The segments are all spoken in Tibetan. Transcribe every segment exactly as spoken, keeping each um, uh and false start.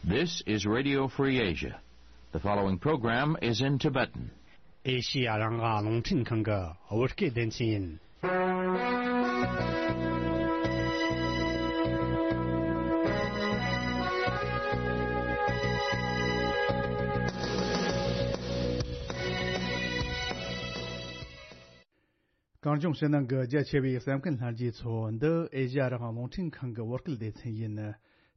This is Radio Free Asia. The following program is in Tibetan. ཨེ་ཤི་ཡ་རང་དབང་རླུང་འཕྲིན་ཁང་གི་བོད་སྐད་སྡེ་ཚན་ཡིན། གངས་ལྗོངས་ཕྱི་ནང་གི་རྒྱ་ཆེ་བའི་གསན་མཁན་ལྷན་རྒྱས་ཚོ། འདི་ཨེ་ཤ་ཡ་རང་དབང་རླུང་འཕྲིན་ཁང་གི་བོད་སྐད་སྡེ་ཚན་ཡིན།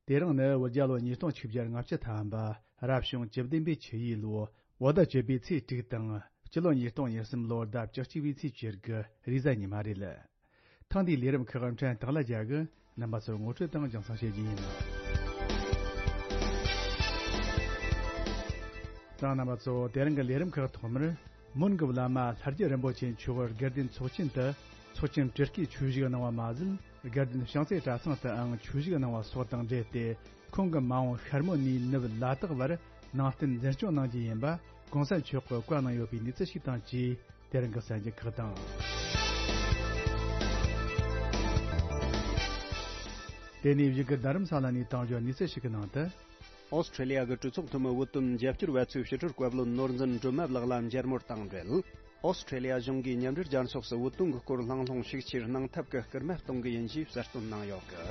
དེ་རིང་ནི་བོད་རྒྱལ་ལོ་ཉིས་སྟོང་ཆིག་བརྒྱ་ལྔ་བཅུ་ཐམ་པ། རབ་བྱུང་བཅུ་བདུན་པའི་ཆུ་ཡོས་ལོ། བོད་ཟླ་བཅུ་པའི་ཚེས་དྲུག་དང་། སྤྱི་ལོ་ཉིས་སྟོང་ཉེར་གསུམ་ལོར་ཟླ་བཅུ་གཅིག་པའི་ཚེས་བཅུ་དགུ་རེས་གཟའ་ཉི་མ་རེད། ཐེངས་འདིའི་ལས་རིམ་ཁག་འཕྲིན་སྟེགས་ལ་རྒྱ་གི་རྣམ་པ་ཚོར་ངོ་སྤྲོད་དང་རྒྱང་སྲིང་བྱེད་རྒྱུ་ཡིན། ད་རྣམ་པ་ཚོ། དེ་རིང་གི་ལས་རིམ་ཁག་ཐོག་མར། མོན་གྱི་བླ་མ་ལྷ་རྒྱལ་རིན་པོ་ཆེ་མཆོག་དགའ་ལྡན་ཚོགས་ཆེན་དུ་ཚོགས་ཆེན་སྤྲུལ་སྐུའི་ཆོས་ཞུགས་གནང་བ་མ་ཟད། དགའ་ལྡན་བྱང་རྩེ་གྲྭ་ཚང་དུའང་ཆོས་ཞུགས་གནང་བ་སོགས་དང་འབྲེལ་ཏེ། ཁོང་གི་མ་འོངས་ཤར་མོ་ནས་ནུབ་ལ་དྭགས་བར་ནང་བསྟན་འཛིན་སྐྱོང་གནང་རྒྱུ་ཡིན་པ་གོང་ས་མཆོག་གིས་བཀའ་གནང་ཡོད་པའི་གནས་ཚུལ་ཞིག་དང་བཅས། དེ་རིང་གི་གསར་འགྱུར་ཁག་དང་། དེ་ནས་བཞུགས་སྒར་རྡ་རམ་ས་ལ་ནས་དང་འབྱོར་གནས་ཚུལ་ཞིག་གི་ནང་དུ། ཨོ་སི་ཁྲེ་ལི་ཡ་གི་གྲོས་ཚོགས་འཐུས་མི་བོད་དོན་རྒྱབ་སྐྱོར་བ་ཚོས་ཕྱི་དྲིལ་བཀའ་བློན་ནོར་འཛིན་སྒྲོལ་མ་ལགས་ལ་མཇལ་མོལ་དང་འབྲེལ། ཨོ་སི་ཁྲེ་ལི་ཡ་གཞུང་གིས་མཉམ་འབྲེལ་རྒྱལ་ཚོགས་སུ་བོད་དོན་གྱི་སྐོར་ལྷང་ལྷུང་ཤུགས་ཆེར་གནང་ཐབས་ཀྱི་སྐུལ་མ་གཏོང་གི་ཡིན་ཞེས་གསལ་སྟོན་གནང་ཡོད་གི།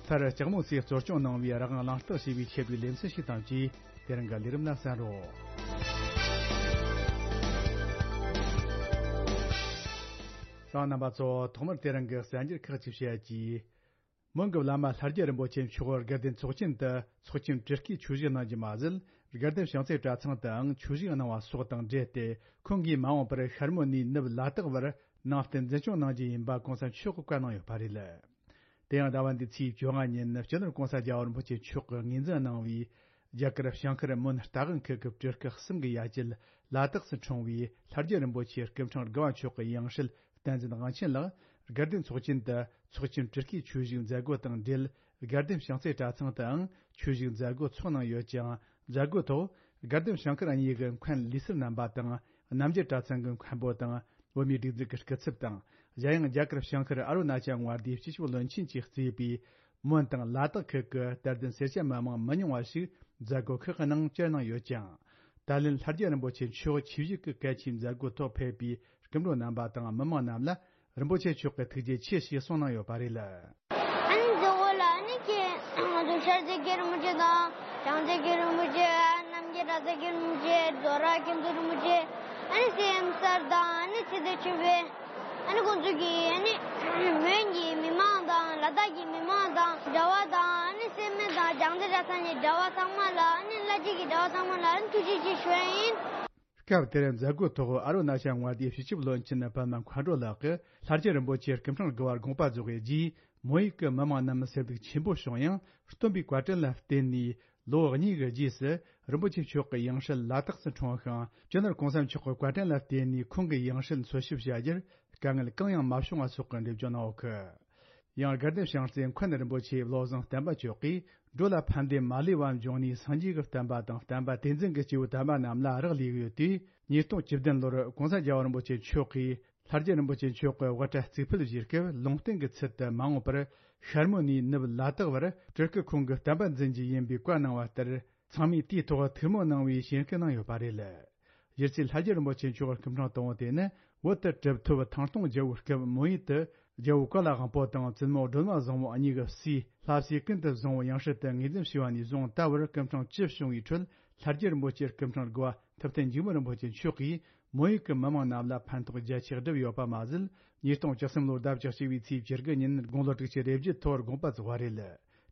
མཐར་ལྕགས་མོ་སིས་གཙོ་སྐྱོང་གནང་བའི་རང་དབང་གླེང་སྟེགས་ཞེས་པའི་ཆེད་དུ་ལེ་ཚན་ཞིག་དང་བཅས། དེ་རིང་གི་ལས་རིམ་ལ་གསན་རོགས། གསན་མཁན་རྣམ་པ་ཚོ། ཐོག་མར་དེ་རིང་གི་གསར་འགྱུར་ཁག་ཅིག་བཤད་ཀྱིས། མོན་གྱི་བླ་མ་ལྷ་རྒྱལ་རིན་པོ་ཆེ་མཆོག་དགའ་ལྡན་ཚོགས་ཆེན་དུ་ཚོགས་ཆེན་སྤྲུལ་སྐུའི་ཆོས་ཞུགས་གནང་རྒྱུ་མ་ཟད། དགའ་ལྡན་བྱང་རྩེ་གྲྭ་ཚང་དུའང་ཆོས་ཞུགས་གནང་བ་སོགས་དང་འབྲེལ་ཏེ། ཁོང་གིས་མ་འོངས་པར་ཤར་མོ་ནས་ནུབ་ལ་དྭགས་བར་ནང་བསྟན་འཛིན་སྐྱོང་གནང་རྒྱུ་ཡིན་པ་གོང་ས་མཆོག་གིས་བཀའ་གནང་ཡོད་པ་རེད། དེ་ཡང་ཟླ་བ་འདིའི་ཚེས་བཅོ་ལྔ་ཉིན་སྤྱི་ནོར་༸གོང་ས་༸རྒྱལ་བ་རིན་པོ་ཆེ་མཆོག་གིས་ངོས་འཛིན་གནང་བའི་རྒྱ་གར་བྱང་ཤར་མོན་རྟ་དབང་ཁུལ་གྱི་སྤྲུལ་སྐུ་གསུམ་གྱི་ཡ་གྱལ་ལ་དྭགས་སུ་འཁྲུངས་པའི་ལྷ་རྒྱལ་རིན་པོ་ཆེ་སྐུ་ཕྲེང་དགུ་བ་མཆོག་གི་ཡང་སྲིད་བསྟན་འཛིན་དབང་ཆེན་ལགས་དགའ་ལྡན་ཚོགས་ཆེན་དུ་ཚོགས་ཆེན་སྤྲུལ་སྐུའི་ཆོས་ཞུགས་མཛད་སྒོ་དང་འབྲེལ། དགའ་ལྡན་བྱང་རྩེ་གྲྭ་ཚང་དུའང་ཆོས་ཞུགས་མཛད་སྒོ་ཚོགས་གནང་ཡོད་ཅིང་། མཛད་སྒོའི་ཐོག་དགའ་ལྡན་བྱང་ཤར་གཉིས་ཀྱི་མཁན་ལུས་གསར་རྣམ་པ་དང་། རྣམ་རྒྱལ་གྲྭ་ཚང་གི་མཁན་པོ་དང་། བོད་མིའི་སྒྲིག་འཛུགས་ཀྱི་སྐུ་ཚབ་དང་། གཞན་ཡང་རྒྱ་གར་བྱང་ཤར་ཨ་རུ་ན་ཅལ་མངའ་སྡེའི་སྤྱི་ཁྱབ་བློན་ཆེན་གྱིས་གཙོས་པའི་མོན་དང་ལ་དྭགས་ཁུལ་གྱི་དད་ལྡན་སེར་སྐྱ་མི་མང་མི་ཉུང་བ་ཞིག་མཛད་སྒོ་ཁག་གི་ནང་བཅར་གནང་ཡོད་ཅིང་། ད་ལན་ལྷ་རྒྱལ་རིན་པོ་ཆེ་མཆོག་ཆིབས་བཞུགས་ཀྱི་གལ་ཆེའི་མཛད་སྒོའི་ཐོག་ཕེབས་པའི་སྐུ་མགྲོན་རྣམ་པ་དང་མི་མང་རྣམས་ལ་རིན་པོ་ཆེ་མཆོག་གིས་ཐུགས་རྗེ་ཆེ་ཞེས་གསུངས་གནང་ཡོད་པ་རེད། ཨ་ནི་མཛད་སྒོ་ལ་ཨ་ནི་ཁྱེད་ང་ཚོ་ཤར་རྩེ་རྒྱལ་རིན་པོ་ཆེ་དང་བྱང་རྩེ་རྒྱལ་རིན་པོ་ཆེ། རྣམ་རྒྱལ་གྲྭ་ཚང་རྒྱལ་རིན་པོ་ཆེ། རྫོགས་ར་མཁན་ཟུར་རིན་པོ་ཆེ། ཨ་ནི་སེམས་གསར་དང་ཨ་ནི་ཚེ་བརྟན་ཆོས་འཕེལ། ཨ་ནི་ཁོང་ཚོ་གིས་ཨ་ནི་མོན་གྱི་མི་མང་དང་ལ་དྭགས་ཀྱི་མི་མང་དང་གྲྭ་བ་དང་ཨ་ནི་སེར་སྨད་དང་བྱང་རྩེ་གྲྭ་ཚང་གི་གྲྭ་བ་ཚང་མ་ལ་ཨ་ནི་བླ་སྤྱི་གི་གྲྭ་བ་ཚང་མ་ལ་ཨ་ནི་ཐུགས་རྗེ་ཆེ་ཞུ་ཡ་ཡིན། སྐབས་དེར་མཛད་སྒོའི་ཐོག་ཨ་རུ་ན་ཅལ་མངའ་སྡེའི་སྤྱི་ཁྱབ་བློན་ཆེན་པདྨ་མཁའ་འགྲོ་ལགས་ཀྱིས་ལྷ་རྒྱལ་རིན་པོ་ཆེ་སྐུ་ཕྲེང་དགུ་བར་དགོངས་པ་རྫོགས་པའི་རྗེས། མོན་ཡུལ་གྱི་མི་མང་རྣམས་སེམས་སྡུག་ཆེན་པོ་བྱུང་ཡང་། སྟོན་པའི་བཀའ་དྲིན་ལ་བརྟེན་ནས་ལོ་གཉིས་ཀྱི་རྗེས་སུ། རིན་པོ་ཆེ་མཆོག་གི་ཡང་སྲིད་ལ་དྭགས་སུ་འཁྲུངས་ཤིང་། སྤྱི་ནོར་༸གོང་ས་མཆོག་གི་བཀའ་དྲིན་ལ་བརྟེན་ནས་ཁོང་གི་ཡང་སྲིད་འཚོལ་ཞིབ་བྱ་རྒྱུར་དཀའ་ངལ་གང་ཡང་མ་བྱུང་བ་སོགས་ཀྱི་འགྲེལ་བརྗོད་གནང་ཡོད་ཀི། ཡང་དགའ་ལྡན་བྱང་རྩེ་མཁན་རིན་པོ་ཆེ་བློ་བཟང་བསྟན་པ་མཆོག་གིས། འགྲོ་ལ་ཕན་བདེ་མ་ལུས་པ་འབྱུང་ནས་སངས་རྒྱས་ཀྱི་བསྟན་པ་དང་བསྟན་པ་དེ་འཛིན་གྱི་སྐྱེས་བུ་དམ་པ་རྣམས་ལ་རག་ལས་ཡོད་དུས། ཉིས་སྟོང་བཅུ་བདུན་ལོར་༸གོང་ས་༸རྒྱལ་བ་རིན་པོ་ཆེ་མཆོག་གིས་ལྷ་རྒྱལ་རིན་པོ་ཆེ་མཆོག་གི་དབུ་སྐྲ་གཙུག་ཕུད་བཞེས་སྐབས། ལུང་བསྟན་གྱི་ཚུལ་དུ་མ་འོངས་པར་ཤར་མོ་ནས་ནུབ་ལ་དྭགས་བར་སྤྲུལ་སྐུ་ཁོང་གི་བསྟན་པ་འཛིན་རྒྱུ་ཡིན་པའི་བཀའ་གནང་བ་ལྟར། ཚང་མས་དེའི་ཐོག་ཐུགས་སྨོན་གནང་བའི་ཞེན་སྐུལ་གནང་ཡོད་པ་རེད། གཞི་རྩའི་ལྷ་རྒྱལ་རིན་པོ་ཆེ་མཆོག་གི་སྐུ་ཕྲེང་དང་པོ་དེ་ནི། བོད་དུ་གྲུབ་ཐོབ་ཐང་སྟོང་རྒྱལ་པོའི་སྐབས། མོན་ཡུལ་དུ་རྒྱལ་པོ་ཀོ་ལ་དབང་པོ་དང་བཙུན་མོ་སྒྲོལ་མ་བཟང་མོ་གཉིས་ཀྱི་སྲས་ལྷ་སྲས་ཀུན་ཏུ་བཟང་པོ་ཡང་སྲིད་དུ་ངོས་འཛིན་བྱས་པ་ནས་བཟུང་ད་བར་སྐུ་ཕྲེང་བཅུ་བྱུང་བའི་ཁྲོད། ལྷ་རྒྱལ་རིན་པོ་ཆེ་སྐུ་ཕྲེང་དགུ་བ་ཐུབ་བསྟན་འཇིགས་མེད་རིན་པོ་ཆེ་མཆོག་གིས་མོན་ཡུལ་གྱི་མི་མང་རྣམས་ལ་ཕན་ཐོགས་རྒྱ་ཆེ་བསྒྲུབས་ཡོད་པ་མ་ཟད། ཉིས་སྟོང་བཅུ་གསུམ་ལོར་ཟླ་བཅུ་གཅིག་པའི་ཚེས་བཅུ་དགུ་ཉིན་དགུང་ལོ་དྲུག་ཅུ་རེ་བརྒྱད་ཐོག་དགོངས་པ་རྫོགས་པ་རེད།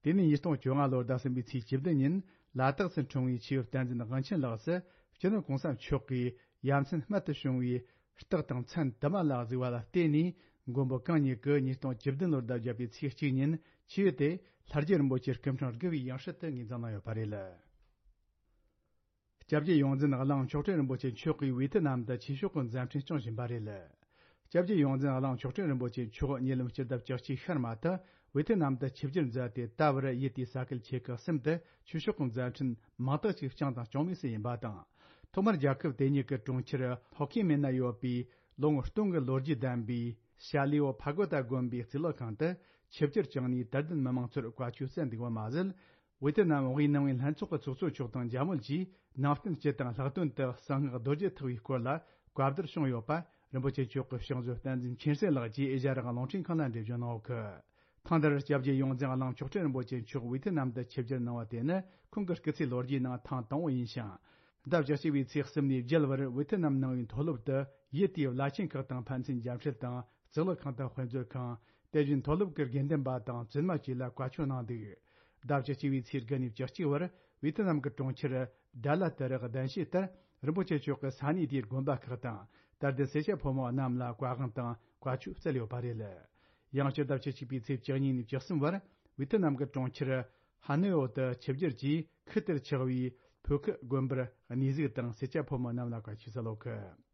དེ་ནས་ཉིས་སྟོང་བཅོ་ལྔ་ལོར་ཟླ་གསུམ་པའི་ཚེས་བཅུ་བདུན་ཉིན་ལ་དྭགས་སུ་འཁྲུངས་པའི་ཆེ་བོ་བསྟན་འཛིན་དབང་ཆེན་ལགས་སུ་སྤྱི་ནོར་༸གོང་ས་མཆོག་གིས་ཡ་མཚན་རྨད་དུ་བྱུང་བའི་རྟགས་དང་མཚན་དུ་མ་ལ་གཟིགས་པ་ལ་བརྟེན་ནས། མགོན་པོ་གང་ཉིད་ཀྱིས་ཉིས་སྟོང་བཅུ་བདུན་ལོར་ཟླ་བརྒྱད་པའི་ཚེས་གཅིག་ཉིན་ཆེ་བོ་དེ་ལྷ་རྒྱལ་རིན་པོ་ཆེ་སྐུ་ཕྲེང་དགུ་བའི་ཡང་སྲིད་དུ་ངོས་འཛིན་གནང་ཡོད་པ་རེད། སྐྱབས་རྗེ་ཡོངས་འཛིན་གླིང་མཆོག་སྤྲུལ་རིན་པོ་ཆེ་མཆོག་གིས་ཝེ་ཐི་ནམ་དུ་ཆོས་ཕྱོགས་ཀྱི་མཛད་འཕྲིན་སྐྱོང་བཞིན་པ་རེད། སྐྱབས་རྗེ་ཡོངས་འཛིན་གླིང་མཆོག་སྤྲུལ་རིན་པོ་ཆེ་མཆོག་ཉེ་ལམ་སྤྱི་ཟླ་བཅུ་གཅིག་ཤར་མ་དུ་ཝེ་ཐི་ནམ་དུ་ཆིབས་བསྒྱུར་མཛད་དེ། ད་བར་ཡུལ་དེའི་ས་ཁུལ་ཆེ་ཁག་གསུམ་དུ་ཆོས་ཕྱོགས་ཀྱི་མཛད་འཕྲིན་མང་དག་ཅིག་བསྐྱངས་དང་སྐྱོང་མུས་སུ་ཡིན་པ་དང་། ཐོག་མར་རྒྱལ་ཁབ་དེ་ཉིད་ཀྱི་གྲོང་ཁྱེར་ཧོ་ཁི་མིན་ན་ཡོད་པའི་ལོ་ངོ་སྟོང་གི་ལོ་རྒྱུས་ལྡན་པའི་ཤ་ལི་ཝོ་ཕ་གོ་ཏ་དགོན་པའི་གཙུག་ལག་ཁང་དུ་ ཆིབས་བསྒྱུར་བསྐྱངས་ནས་དད་ལྡན་མི་མང་ཚོར་བཀའ་ཆོས་སྩལ་འདུག་པ་མ་ཟད། ཝེ་ཐི་ནམ་དབུས་ནང་པའི་ལྷན་ཚོགས་ཀྱི་ཚོགས་གཙོ་མཆོག་དང་འཇམ་དབྱངས་ཀྱིས་ནང་བསྟན་སྤྱི་དང་ལྷག་དོན་དུ་གསང་སྔགས་རྡོ་རྗེ་ཐེག་པའི་སྐོར་ལ་བཀའ་བསྡུར་བྱུང་ཡོད་པ། རིན་པོ་ཆེ་མཆོག་གི་ཕྱག་མཛོད་བསྟན་འཛིན་མཁྱེན་བརྩེ་ལགས་ཀྱིས་ཨེ་ཤ་ཡ་རང་དབང་རླུང་འཕྲིན་ཁང་ལ་འགྲེལ་བརྗོད་གནང་ཡོད་ཀི། ཐེངས་འདིར་སྐྱབས་རྗེ་ཡོངས་འཛིན་གླིང་མཆོག་སྤྲུལ་རིན་པོ་ཆེ་མཆོག་ཝེ་ཐི་ནམ་དུ་ཆིབས་བསྒྱུར་གནང་བ་དེ་ནི་ཁོང་གི་སྐུ་ཚེའི་ལོ་རྒྱུས་ནང་ཐེངས་དང་པོ་ཡིན་ཞིང་། ཟླ་བཅུ་གཅིག་པའི་ཚེས་གསུམ་ནས་བརྒྱད་བར་ཝེ་ཐི་ནམ་ནང་པའི་མཐོ་སློབ་ཏུ་ཡུལ་དེའི་བླ་ཆེན་ཁག་དང་ཕན་ཚུན་མཇལ་འཕྲད་དང་གཙུག་ལག་ཁང་དང་དཔེ་མཛོད་ཁང་། དེ་བཞིན་མཐོ་སློབ་ཀྱི་དགེ་འདུན་པ་དང་བཙུན་མ་བཅས་ལ་བཀའ་ཆོས་གནང་འདུག་ཟླ་བཅུ་གཅིག་པའི་ཚེས་དགུ་ནས་བཅུ་གཅིག་བར་ཝེ་ཐི་ནམ་གྱི་གྲོང་ཁྱེར་ཌ་ལ་ཏི་རི་གདན་ཞུས་ལྟར། རིན་པོ་ཆེ་མཆོག་གིས་ས་གནས་དེའི་དགོན་པ་ཁག་དང་དད་ལྡན་སེར་སྐྱ་ཕོ་མོ་རྣམས་ལ་བཀའ་དབང་དང་བཀའ་ཆོས་སྩལ་ཡོད་པ་རེད། ཡང་སྤྱི་ཟླ་བཅུ་གཅིག་པའི་ཚེས་བཅུ་གཉིས་ནས་བཅུ་གསུམ་བར་ཝེ་ཐི་ནམ་གྱི་གྲོང་ཁྱེར་ཧ་ནོའི་འོག་ཏུ་ཆིབས་བསྒྱུར་གྱིས་ཁུལ་དེར་ཆགས་པའི་ཕོ་ཁི་དགོན་པར་གནས་གཟིགས་དང་སེར་སྐྱ་ཕོ་མོ་རྣམས་ལ་བཀའ་ཆོས་སྩལ་ཡོད་ཀི།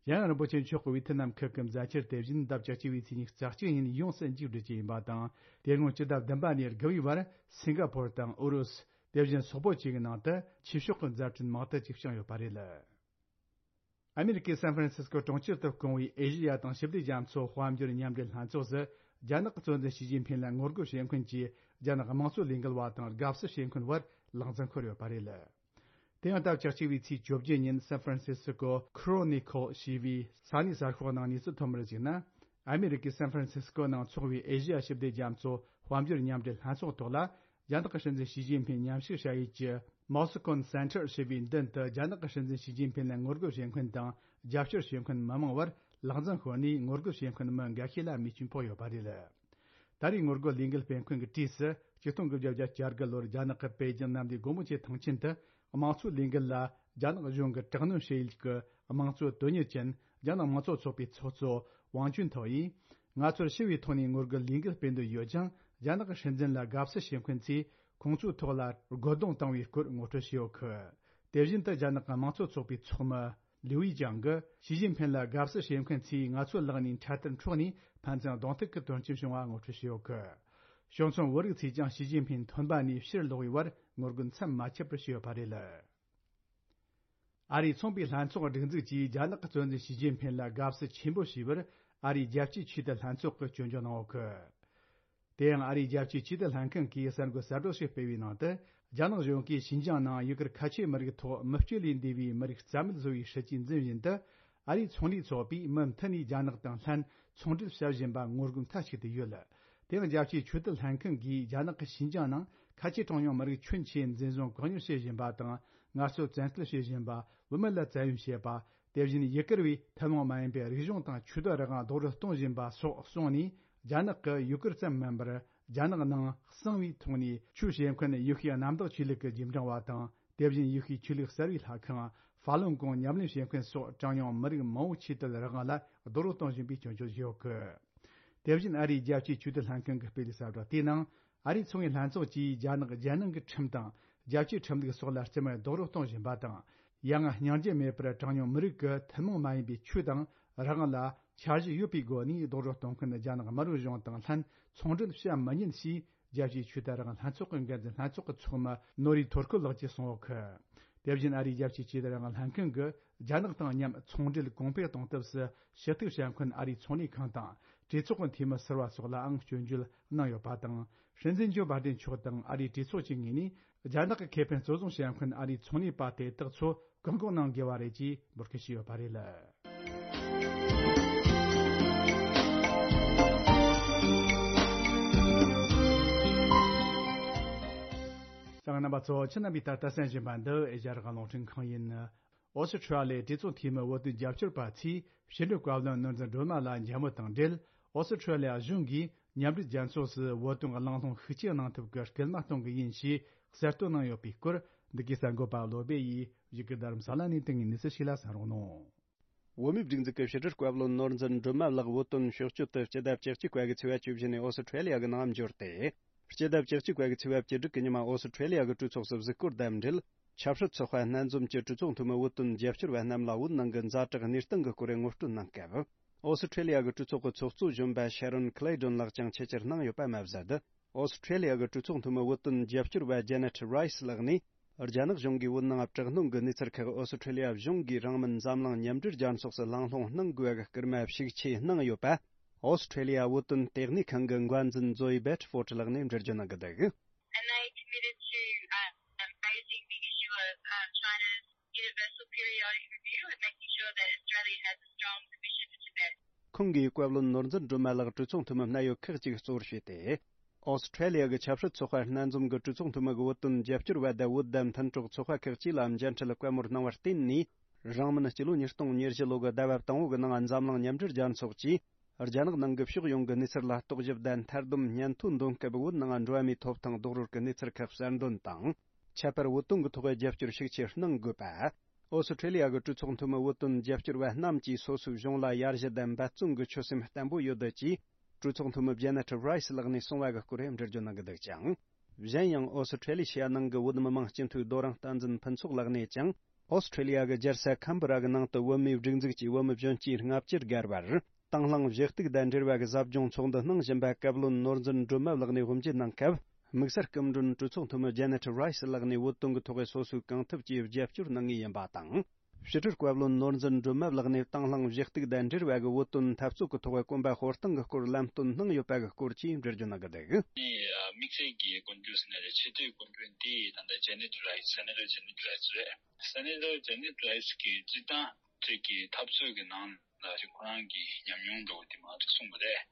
ཡང་རིན་པོ་ཆེ་མཆོག་གིས་ཝེ་ཐི་ནམ་ཁུལ་གྱི་མཛད་འཆར་དེ་བཞིན་ཟླ་བཅུ་གཅིག་པའི་ཚེས་ཉི་ཤུ་རྩ་གཅིག་ཉིན་ཡོངས་སུ་མཇུག་སྒྲིལ་རྒྱུ་ཡིན་པ་དང་། དེ་སྔོན་སྤྱི་ཟླ་བདུན་པ་ནས་དགུ་པའི་བར་སིང་ག་ཕོར་དང་ཨུ་རུ་སུ། དེ་བཞིན་སོག་པོ་བཅས་ཀྱི་ནང་དུ་ཆོས་ཕྱོགས་ཀྱི་མཛད་འཕྲིན་མང་དུ་ཅིག་བསྐྱངས་ཡོད་པ་རེད། ཨ་མེ་རི་ཀའི་སན་ཧྥ་རན་སིས་ཀོ་གྲོང་ཁྱེར་དུ་བསྐོངས་པའི་ཨེ་ཤེ་ཡ་དང་ཞི་བདེ་རྒྱ་མཚོ་དཔལ་འབྱོར་མཉམ་འབྲེལ་ལྷན་ཚོགས་སུ་རྒྱ་ནག་གི་གཙོ་འཛིན་ཞི་ཅིན་ཕིན་ལ་ངོ་རྒོལ་བྱེད་མཁན་གྱི་རྒྱ་ནག་དམངས་གཙོ་ལས་འགུལ་བ་དང་དགའ་བསུ་བྱེད་མཁན་བར་ལག་འཛིང་ཤོར་ཡོད་པ་རེད། དེ་ཡང་ཟླ་བཅུ་གཅིག་པའི་ཚེས་བཅོ་བརྒྱད་ཉིན་སན་ཧྥ་རན་སིས་ཀོ་ཁོ་རོ་ནི་ཁོལ་ཞེས་པའི་ས་གནས་གསར་ཤོག་ནང་གནས་ཚུལ་ཐོན་པར་གཞིགས་ན། ཨ་མེ་རི་ཀའི་སན་ཧྥ་རན་སིས་ཀོ་ནང་འཚོགས་པའི་ཨེ་ཤེ་ཡ་ཞི་བདེ་རྒྱ་མཚོ་དཔལ་འབྱོར་མཉམ་འབྲེལ་ལྷན་ཚོགས་ཐོག་ལ། རྒྱ་ནག་གི་སྲིད་འཛིན་ཞི་ཅིན་ཕིན་མཉམ་ཞུགས་བྱ་ཡུལ་གྱི་མོ་སི་ཀོན་སེན་ཊར་ཞེས་པའི་མདུན་དུ་རྒྱ་ནག་གི་སྲིད་འཛིན་ཞི་ཅིན་ཕིན་ལ་ངོ་རྒོལ་བྱེད་མཁན་དང་རྒྱབ་སྐྱོར་བྱེད་མཁན་མི་མང་བར་ལག་འཛིང་ཤོར་ནས་ངོ་རྒོལ་བྱེད་མཁན་མི་འགའ་ཤས་ལ་རྨས་སྐྱོན་ཕོག་ཡོད་པ་རེད། ད་རེས་ངོ་རྒོལ་ལས་འགུལ་སྤེལ་མཁན་གྱི་གྲས་སུ་ཆིག་སྟོང་དགུ་བརྒྱ་བརྒྱད་ཅུ་གྱ་དགུ་ལོར་རྒྱ་ནག་གི་པེ་ཅིང་གནམ་བདེ་སྒོ་མོ་ཆེའི་ཐང་ཆེན་དུ་དམངས་གཙོའི་ལས་འགུལ་ལ་རྒྱ་ནག་གཞུང་གིས་དྲག་གནོན་བྱེད་ཡུལ་གྱི་དམངས་གཙོ་དོན་གཉེར་ཅན་རྒྱ་ནག་དམངས་གཙོ་ཚོགས་པའི་ཚོགས་གཙོ་ཝང་ཅུན་ཐའོ་ཡིས། ང་ཚོར་ཞི་བའི་ཐོག་ནས་ངོ་རྒོལ་ལས་འགུལ་སྤེལ་འདོད་ཡོད་ཀྱང་། རྒྱ་ནག་གི་སྲིད་འཛིན་ལ་དགའ་བསུ་བྱེད་མཁན་ཚོས་ཁོང་ཚོའི་ཐོག་ལ་རྒོལ་རྡུང་བཏང་བའི་སྐོར་ངོ་སྤྲོད་བྱས་ཡོད་གི། དེ་བཞིན་དུ་རྒྱ་ནག་གི་དམངས་གཙོ་ཚོགས་པའི་ཚོགས་མི་ལིའུ་ཡི་ཅང་གིས་ཞི་ཅིན་ཕིན་ལ་དགའ་བསུ་བྱེད་མཁན་ཚོས་ང་ཚོའི་ལག་ནས་འཕྲལ་དུ་འཕྲོག་ནས་ཕན་ཚུན་གདོང་ཐུག་གི་དོན་རྐྱེན་བྱུང་བ་ངོ་སྤྲོད་བྱས་ཡོད་གི། གཞུང་ཚབ་བོད་རིགས་ཚོས་ཀྱང་ཞི་ཅིན་ཕིན་ཐོན་པ་ནས་ཕྱིར་ལོག་པའི་བར་ངོ་རྒོལ་མཚམས་མ་ཆད་པར་བྱས་ཡོད་པ་རེད། ཨ་རིའི་ཚོང་པའི་ལྷན་ཚོགས་སྒྲིག་འཛུགས་ཀྱིས་རྒྱ་ནག་གི་གཙོ་འཛིན་ཞི་ཅིན་ཕིན་ལ་དགའ་བསུ་ཆེན་པོ་ཞུས་པར་ཨ་རིའི་རྒྱལ་སྤྱིའི་ཆོས་དད་ལྷན་ཚོགས་ཀྱིས་སྐྱོན་བརྗོད་གནང་ཡོད་གི། དེ་ཡང་ཨ་རིའི་རྒྱལ་སྤྱིའི་ཆོས་དད་ལྷན་ཁང་གིས་གསར་འགོད་གསར་བསྒྲགས་ཤིག་སྤེལ་བའི་ནང་དུ། རྒྱ་ནག་གཞུང་གིས་ཞིན་ཅང་ནང་ཡུ་གུར་ཁ་ཆེ་མི་རིགས་ཐོག་མི་སྤྱོད་ལས་འདས་པའི་མི་རིགས་རྩ་མེད་བཟོ་བའི་སྲིད་ཇུས་འཛིན་བཞིན་དུ། ཨ་རིའི་ཚོང་ལས་ཚོགས་པས་མུ་མཐུད་ནས་རྒྱ་ནག་དང་ལྷན་ཚོང་འབྲེལ་བྱ་བཞིན་པ་ངོ་རྒོལ་མཐའ་གཅིག་ཏུ་ཡོད། དེ་ཡང་རྒྱལ་སྤྱིའི་ཆོས་དད་ལྷན་ཁང་གིས་རྒྱ་ནག་གི་ཞིན་ཅང་ནང་ཁ་ཆེ་གྲངས་ཉུང་མི་རིགས་ཁྱོན་ཆེ་འཛིན་བཟུང་བཀག་ཉར་བྱེད་བཞིན་པ་དང་། ངལ་རྩོལ་བཙན་སྐུལ་བྱེད་བཞིན་པ། བུད་མེད་ལ་བཙན་གཡེམ་བྱེད་པ། དེ་བཞིན་ཡུ་གུར་བའི་ཐུན་མོང་མ་ཡིན་པའི་རིག་གཞུང་དང་ཆོས་དད་རང་དབང་རྡོག་རོལ་གཏོང་བཞིན་པ་སོགས་གསུངས་ནས། རྒྱ་ནག་གི་ཡུ་གུར་ཙམ་མིན་པར། རྒྱ་ནག་ནང་གསང་བའི་ཐོག་ནས་ཆོས་བྱེད་མཁན་ཡེ་ཤུའི་གནམ་བདག་ཆོས་ལུགས་ཀྱི་རྗེས་འབྲང་བ་དང་། དེ་བཞིན་ཡེ་ཤུའི་ཆོས་ལུགས་གསར་བའི་ལྷ་ཁང་ཧྥ་ལུན་གོང་ཉམས་ལེན་བྱེད་མཁན་སོགས་གྲངས་ཉུང་མི་རིགས་མང་བོའི་ཆོས་དད་རང་དབང་ལ་རྡོག་རོལ་གཏོང་བཞིན་པའི་སྐྱོན་བརྗོད་བྱས་ཡོད་གི། དེ་བཞིན་ཨ་རིའི་རྒྱལ་སྤྱིའི་ཆོས་དད་ལྷན་ཁང་གིས་སྤེལ་བའི་གསལ་བསྒྲགས་དེའི་ནང་། ཨ་རིའི་ཚོང་པའི་ལྷན་ཚོགས་ཀྱིས་རྒྱ་ནག་རྒྱལ་ནང་གི་ཁྲིམས་དང་། རྒྱལ་སྤྱིའི་ཁྲིམས་ལུགས་སོགས་ལ་རྩིས་མེད་རྡོག་རོལ་གཏོང་བཞིན་པ་དང་། ཡང་སྙིང་རྗེ་མེད་པར་གྲངས་ཉུང་མི་རིགས་ཀྱི་ཐུན་མོང་མ་ཡིན་པའི་ཆོས་དང་རང་དབང་ལ་འཆར་གཞི་ཡོད་པའི་སྒོ་ནས་རྡོག་རོལ་གཏོང་མཁན་རྒྱ་ནག་དམར་པོའི་གཞུང་དང་ལྷན་ཚོང་འབྲེལ་བྱ་མི་ཉན་ཞེས། རྒྱལ་སྤྱིའི་ཆོས་དད་རང་དབང་ལྷན་ཚོགས་ཀྱི་འགན་འཛིན་ལྷན་ཚོགས་ཀྱི་ཚོགས་མི་ནོ་རི་ཐོར་ཁོ་ལགས་ཀྱིས་གསུངས་ཡོད་གི། དེ་བཞིན་ཨ་རིའི་རྒྱལ་སྤྱིའི་ཆོས་དད་རང་དབང་ལྷན་ཁང་གིས་རྒྱ་ནག་དང་མཉམ་ཚོང་འབྲེལ་གོང་འཕེལ་གཏོང་ཐབས་སུ་ཞུ་གཏུག་བྱ་མཁན་ཨ་རིའི་ཚོང་ལས་ཁང་དང་། གྲོས་ཚོགས་ཀྱི་འཐུས་མི་ཟུར་པ་སོགས་ལའང་སྐྱོན་བརྗོད་གནང་ཡོད་པ་དང་། སྲིད་འཛིན་ཇོ་བྷ་དན་མཆོག་དང་ཨ་རིའི་གྲོས་ཚོགས་ཀྱི་ངོས་ནས་རྒྱ་ནག་གི་ཁེ་ཕན་གཙོ་བཟུང་བྱ་མཁན་ཨ་རིའི་ཚོང་ལས་པ་དེ་དག་ཚོ་བཀག་འགོག་གནང་དགོས་པ་རེད་ཅེས་འབོད་སྐུལ་བྱས་ཡོད་པ་རེད། ད་རྣམ་པ་ཚོ་ཁྱེད་རྣམ་པས་ད་ལྟ་གསན་བཞིན་པ་འདི་ཨེ་ཤ་ཡ་རང་དབང་རླུང་འཕྲིན་ཁང་ཡིན། ཨོ་སི་ཁྲུ་ལི་ཡའི་གྲོས་ཚོགས་འཐུས་མི་བོད་དོན་རྒྱབ་སྐྱོར་པ་ཚོས་ཕྱི་དྲིལ་བཀའ་བློན་ནོར་འཛིན་སྒྲོལ་མ་ལགས་མཇལ་མོལ་དང་འབྲེལ། ཨོ་སི་ཁྲུ་ལི་ཡ་གཞུང་གིས་མཉམ་འབྲེལ་རྒྱལ་ཚོགས་སུ་བོད་དོན་གླེང་སློང་ཤུགས་ཆེ་གནང་ཐབས་ཀྱི་སྐུལ་མ་གཏོང་གི་ཡིན་ཞེས་གསལ་སྟོན་གནང་ཡོད་པའི་སྐོར། འདི་གའི་གསར་འགོད་པ་བློ་སྦེ་ཡིས་བཞུགས་སྒར་རྡ་རམ་ས་ལ་ནས་དེ་སྔའི་གནས་ཚུལ་ཞིག་ལ་གསན་རོགས་གནང་། བོད་མིའི་སྒྲིག་འཛུགས་ཀྱི་ཕྱི་དྲིལ་བཀའ་བློན་ནོར་འཛིན་སྒྲོལ་མ་ལགས་བོད་དོན་ཕྱོགས་སྐྱོད་དུ་སྤྱི་ཟླ་བཅུ་གཅིག་པ་གི་ཚེས་པ་བཅུ་བཞི་ནས་ཨོ་སི་ཁྲུ་ལི་ཡ་གི་ནང་འབྱོར་ཏེ། སྤྱི་ཟླ་བཅུ་གཅིག་པ་གི་ཚེས་པ་བཅུ་དྲུག་གི་ཉི་མ་ཨོ་སི་ཁྲུ་ལི་ཡ་གི་གྲོས་ཚོགས་སུ་གཟིགས་སྐོར་དང་འབྲེལ། ཆབ་སྲིད་ཚོགས་པ་སྣ་འཛོམས་ཀྱི་གྲོས་ཚོགས་འཐུས་མི་བོད་དོན་རྒྱབ་སྐྱོར་བ་རྣམས་ལ་བོད་ནང་གི་ཛ་དྲག་གནས་སྟངས་ཀྱི་སྐོར་ངོ་སྤྲོད་གནང་སྐབས། ཨོ་སི་ཁྲུ་ལི་ཡ་གི་གྲོས་ཚོགས་ཀྱི་ཚོགས་གཙོ་གཞོན་པ་ཤ་རོན་ཁི་ལེ་ཏོན་ལགས་ཀྱང་ཆེད་བཅར་གནང་ཡོད་པ་མ་ཟད། ཨོ་སི་ཁྲུ་ལི་ཡ་གི་གྲོས་ཚོགས་འཐུས་མི་བོད་དོན་རྒྱབ་སྐྱོར་བ་ཇེ་ནེ་ཊི་རའི་སི་ལགས་ནས། རྒྱ་ནག་གཞུང་གིས་བོད་ནང་དྲག་གནོན་གྱི་གནས་ཚུལ་ཁག་ཨོ་སི་ཁྲུ་ལི་ཡ་གཞུང་གིས་རང་མོས་འཛམ་གླིང་མཉམ་འབྲེལ་རྒྱལ་ཚོགས་སུ་གླེང་སློང་གནང་དགོས་པའི་སྐུལ་མ་ཤུགས་ཆེ་གནང་ཡོད་པ། ཨོ་སི་ཁྲེ་ལི་ཡ་བོད་དོན་ལྟེ་གནས་ཁང་གི་འགན་འཛིན་ཛོ་ཨི་བེ་ཏི་ཕོར་ཊི་ལགས་ནས་འགྲེལ་བརྗོད་གནང་གི་འདུག། And they committed to, um, raising the issue of, um, China's universal periodic review and making sure that Australia has a strong position for Tibet. ཁོང་གིས་བཀའ་བློན་ནོར་འཛིན་སྒྲོལ་མ་ལགས་གྲོས་ཚོགས་འཐུས་མི་སྣ་ཡོད་ཁག་ཅིག་གཙོ་བོར་བྱས་ཏེ། ཨོ་སི་ཁྲེ་ལི་ཡ་གི་ཆབ་སྲིད་ཚོགས་པ་སྣ་འཛོམས་ཀྱི་གྲོས་ཚོགས་འཐུས་མི་གི་བོད་དོན་རྒྱབ་སྐྱོར་བ་དང་བོད་དང་མཐུན་གྲོགས་ཚོགས་པ་ཁག་ཅིག་ལ་མཇལ་འཕྲད་བཀའ་མོལ་གནང་བར་བརྟེན་ནས། རིང་མིན་སྤྱི་ལོ་ཉིས་སྟོང་ཉེར་བཞི་ལོ་གི་ཟླ་བ་དང་པོ་གི་ནང་འཛམ་གླིང་མཉམ་འབྲེལ་རྒྱལ་ཚོགས་ཀྱིས། རྒྱ་ནག་ནང་གི་ཕྱོགས་ཡོངས་ཀྱི་གནས་ཚུལ་ལ་རྟོག་ཞིབ་དང་མཐའ་སྡོམ་སྙན་ཐོ་འདོན་སྐབས་བོད་ནང་འགྲོ་བ་མིའི་ཐོབ་ཐང་རྡོག་རོལ་གྱི་གནས་ཚུལ་ཁག་གསར་འདོན་དང་། ཁྱད་པར་བོད་དོན་གྱི་ཐོག་རྒྱབ་སྐྱོར་ཤུགས་ཆེ་གནང་དགོས་པ། ཨོ་སི་ཁྲེ་ལི་ཡ་གི་གྲོས་ཚོགས་འཐུས་མི་བོད་དོན་རྒྱབ་སྐྱོར་བ་རྣམས་ཀྱིས་སོ་སོའི་གཞུང་ལ་ཡར་ཞུ་དང་འབད་བརྩོན་གྱི་ཆོད་སེམས་བརྟན་པོ་ཡོད་ཅེས། གྲོས་ཚོགས་འཐུས་མི་ཇེ་ནེ་ཊི་རའི་སི་ལགས་ནས་གསུངས་པ་གི་སྐོར་འགྲེལ་བརྗོད་གནང་གི་འདུག་ཅིང་། གཞན་ཡང་ཨོ་སི་ཁྲེ་ལི་ཤི་ཡ་ནང་གི་བོད་མི་མང་སྤྱི་འཐུས་རྡོ་རིང་བསྟན་འཛིན་ཕུན་ཚོགས་ལགས་ནས་ཀྱང་། ཨོ་སི་ཁྲེ་ལི་ཡ་གི་རྒྱལ་ས་ཁམ་བུ་ར་གི་ནང་དུ་བོད་མིའི་སྒྲིག་འཛུགས་ཀྱི་བོད་མི་གཞོན་སྐྱེས་ལྔ་བཅུ་བརྒལ་བར། དང་བླངས་བཞེས་གཏུག་དང་འབྲེལ་བ་གི་ཟབ་སྦྱོང་ཚོགས་འདུ་གནང་བཞིན་པ་བཀའ་བློན་ནོར་འཛིན་སྒྲོལ་མ་ལགས་ནས་དབུ་འབྱེད་གནང་སྐབས། དམིགས་བསལ་སྐུ་མགྲོན་གྲོས་ཚོགས་འཐུས་མི་ཇེ་ནེ་ཊི་རའི་སི་ལགས་ནས་བོད་དོན་གྱི་ཐོག་སོ་སོའི་གང་ཐུབ་ཀྱིས་རྒྱབ་སྐྱོར་གནང་ངེས་ཡིན་པ་དང་། ཕྱི་དྲིལ་བཀའ་བློན་ནོར་འཛིན་སྒྲོལ་མ་ལགས་ནས་དང་བླངས་བཞེས་གཏུག་དང་འབྲེལ་བ་གི་བོད་དོན་འཐབ་རྩོད་ཀྱི་ཐོག་གོམ་པ་སྤོ་སྟངས་ཀྱི་སྐོར་ལམ་སྟོན་གནང་ཡོད་པ་གི་སྐོར་གྱིས་འགྲེལ་བརྗོད་གནང་གི་འདུག། དམིགས་བསལ་གྱི་གོ་འགྲོས་ཟེར་ན་རེད། ཆེས་མཐོའི་གོ་འགྲོས་འདི་ད་ལྟ་ཇེ་ནེ་ཊི་རའི་སི། སེ་ནེ་ཊར་ཇེ་ནེ་ཊི་རའི་སི་རེད། སེ་ནེ་ཊར་ཇེ་ནེ་ཊི་རའི་སི་གིས་སྤྱིར་བཏང་ཅིག་གི་འཐབ་རྩོད་ཀྱི་ནང་ལ་ཅིག་ཁོ་རང་གི་ཉམས་མྱོང་འདྲ་བོ་དེ་མང་ཙམ་གསུངས་པ་རེད།